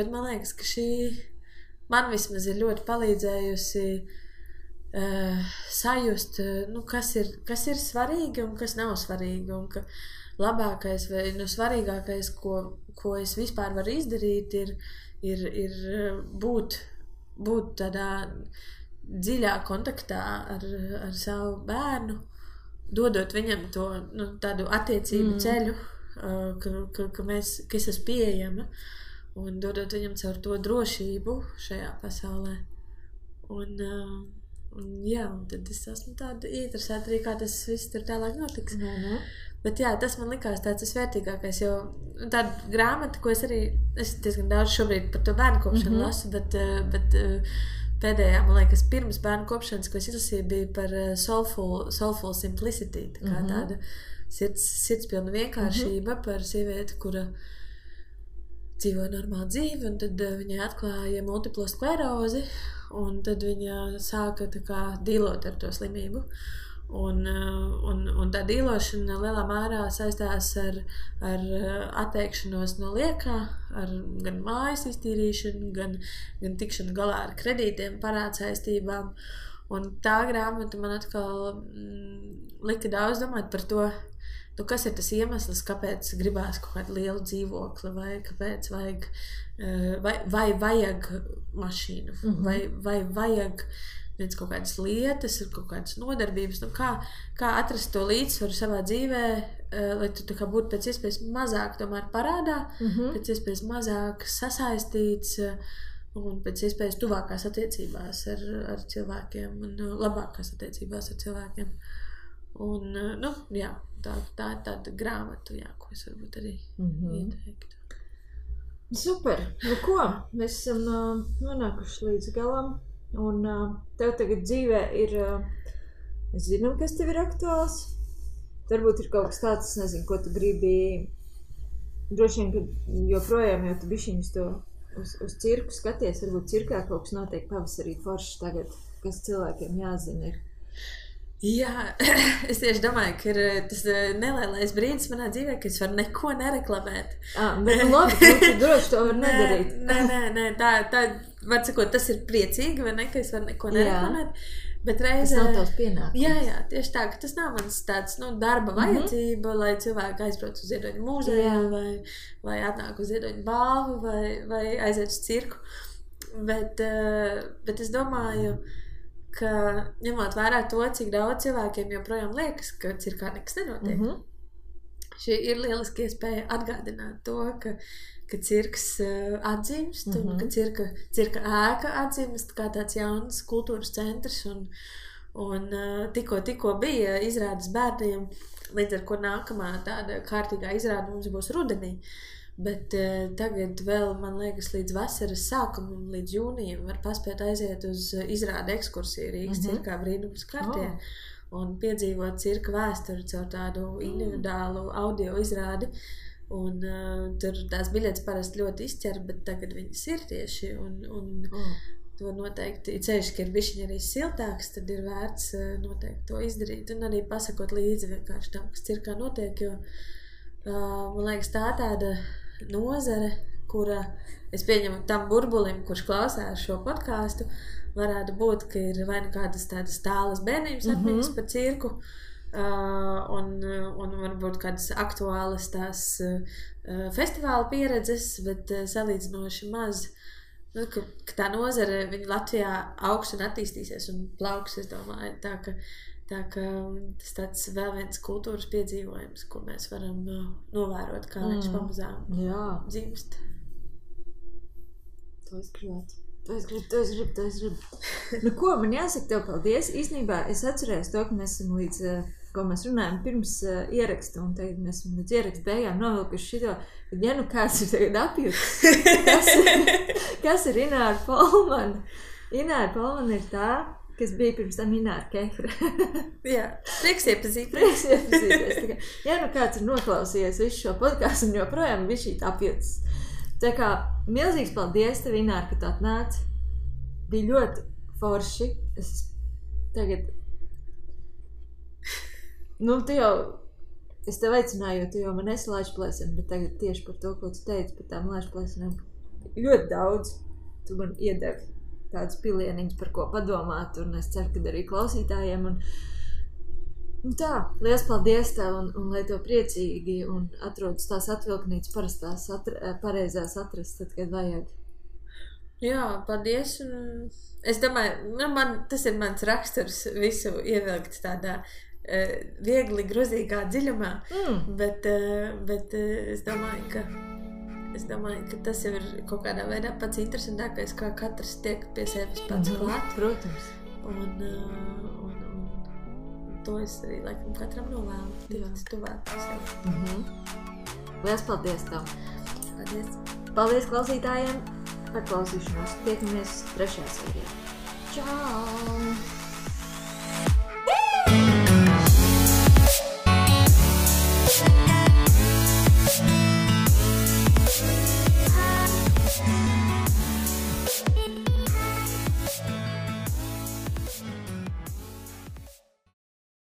man liekas, ka šī man vismaz ir ļoti palīdzējusi sajust, kas ir svarīgi un kas nav svarīgi, un ka labākais vai svarīgākais, ko es vispār varu izdarīt, ir būt tādā dziļā kontaktā ar savu bērnu, dodot viņam to tādu attiecību ceļu, ka es esmu pieejama, un dodot viņam caur to drošību šajā pasaulē. Un tad es esmu tāda ieinteresēta arī, kā tas viss tur tālāk notiks. Bet tas man likās tāds vērtīgākais, jo tāda grāmata, ko es diezgan daudz šobrīd par to bērnu kopšanu lasu, bet pēdējā, man liekas, pirms bērnu kopšanas, ko es izlasīju, bija par soulful simplicity, tā kā tāda sirdspilna vienkāršība par sievieti, kura dzīvoja normālu dzīvi, un tad viņai atklāja multiplo sklerozi, un tad viņa sāka tā kā dīlot ar to slimību. Un tā dīlošana lielā mērā saistās ar atteikšanos no liekā, ar gan mājas iztīrīšanu, gan tikšanu galā ar kredītiem, parādsaistībām. Un tā grāmata man atkal lika daudz domāt par to, kas ir tas iemesls, kāpēc gribās kaut kādu lielu dzīvokli, vai kāpēc vai vajag mašīnu, vai vajag kaut kādas lietas, kaut kādas nodarbības, kā atrast to līdzsvaru savā dzīvē, lai tu tā kā būtu pēc iespējas mazāk tomēr parādā, pēc iespējas mazāk sasaistīts un pēc iespējas tuvākās attiecībās ar cilvēkiem un labākās attiecībās ar cilvēkiem. Un, tā ir tāda grāmata, ko es varbūt arī ieteiktu. Super! Ko? Mēs esam nonākuši līdz galam, un tev tagad dzīvē ir, es zinu, kas tev ir aktuāls. Varbūt ir kaut kas tāds, es nezinu, ko tu gribi, droši vien, ka joprojām jau tu bišķiņus to uz cirku skaties, varbūt cirkā kaut kas notiek pavasarī forši tagad, kas cilvēkiem jāzina ir. Jā, es tieši domāju, ka ir tas nelielais brīdis manā dzīvē, ka es varu neko nereklamēt. Bet labi, tu droši to var nedarīt. Nē, tā var sakot, tas ir priecīgi, vai ne, ka es varu neko nereklamēt. Bet reizē... Tas nav tavs pienākums. Jā, tieši tā, ka tas nav mans tāds, darba vajadzība, lai cilvēki aizbrauc uz Ziedoņu mūzeju vai atnāk uz Ziedoņu balvu vai aiziet uz cirku. Bet es domāju, ka ņemot vērā to, cik daudz cilvēkiem joprojām liekas, ka cirkā nekas nenotiek. Šī ir lieliski iespēja atgādināt to, ka cirks atdzimst un ka cirka ēka atdzimst kā tāds jauns kultūras centrs un tikko bija izrādes bērniem, līdz ar ko nākamā tāda kārtīgā izrāde mums būs rudenī. Bet tagad vēl, man liekas, līdz vasaras sākumam, līdz jūnijam var paspēt aiziet uz izrāde ekskursiju Rīgas cirkā brīnums kartie un piedzīvot cirka vēsturi caur tādu individuālu audio izrādi. Un tur tās biļetes parasti ļoti izķer, bet tagad viņas ir tieši un to noteikti, ceļš, ka ir bišķiņ arī siltāks, tad ir vērts noteikti to izdarīt un arī pasakot līdzi vienkārši tam, kas cirkā notiek, jo man liekas tāda nozare, kura, es pieņemu tam burbulim, kurš klausās šo podcastu, varētu būt, ka ir vai nu kādas tādas tālas bērnības atmiņas par cirku, un varbūt kādas aktuālas tās festivāla pieredzes, bet salīdzinoši maz, ka tā nozare viņa Latvijā augs un attīstīsies un plauks, es domāju, tā ka tas tāds vēl viens kultūras piedzīvojums, ko mēs varam novērot, kā viņš pamazām dzimst. To es gribu. Nu ko, man jāsaka tev paldies. Īstenībā es atcerējos to, ka mēs esam līdz, ko mēs runājam pirms ieraksta, un tagad mēs esam līdz ieraksta beigām novilkuši šito, kad ja nu kāds ir tagad apjūts, kas ir Ināra Polmana. Ināra Polmana ir tā, kas bija pirms tam Ināra Kefra. Jā, prieks iepazīties. Ja nu kāds ir noklausījies visu šo podcastu un joprojām bija šī apjūts. Tā kā milzīgs paldies tev, Ināra, ka tu atnāc. Bija ļoti forši. Es tagad... tu jau... Es tev aicināju, jo tu jau man esi laišplēseni, bet tagad tieši par to, ko tu teici par tām laišplēsenēm. Ļoti daudz. Tu man iedevi tādas pilieniņas, par ko padomāt, un es ceru, ka arī klausītājiem. Un tā, liels paldies tev, un lai tev priecīgi un atrodas tās atvilknītes parastās pareizās atrast, tad, kad vajag. Jā, paldies. Un es domāju, tas ir mans raksturs visu ievilkt tādā viegli grozīgā dziļumā, bet es domāju, ka tas jau ir kaut kādā veidā pats interesantākais, kā katrs tiek pie sevis pats klāt. Protams. Un to es arī laikam katram novēlu. Tikt tuvāk sev. Liels paldies tev. Paldies. Paldies klausītājiem par klausīšanos. Tiekamies 3. sērijā. Čau!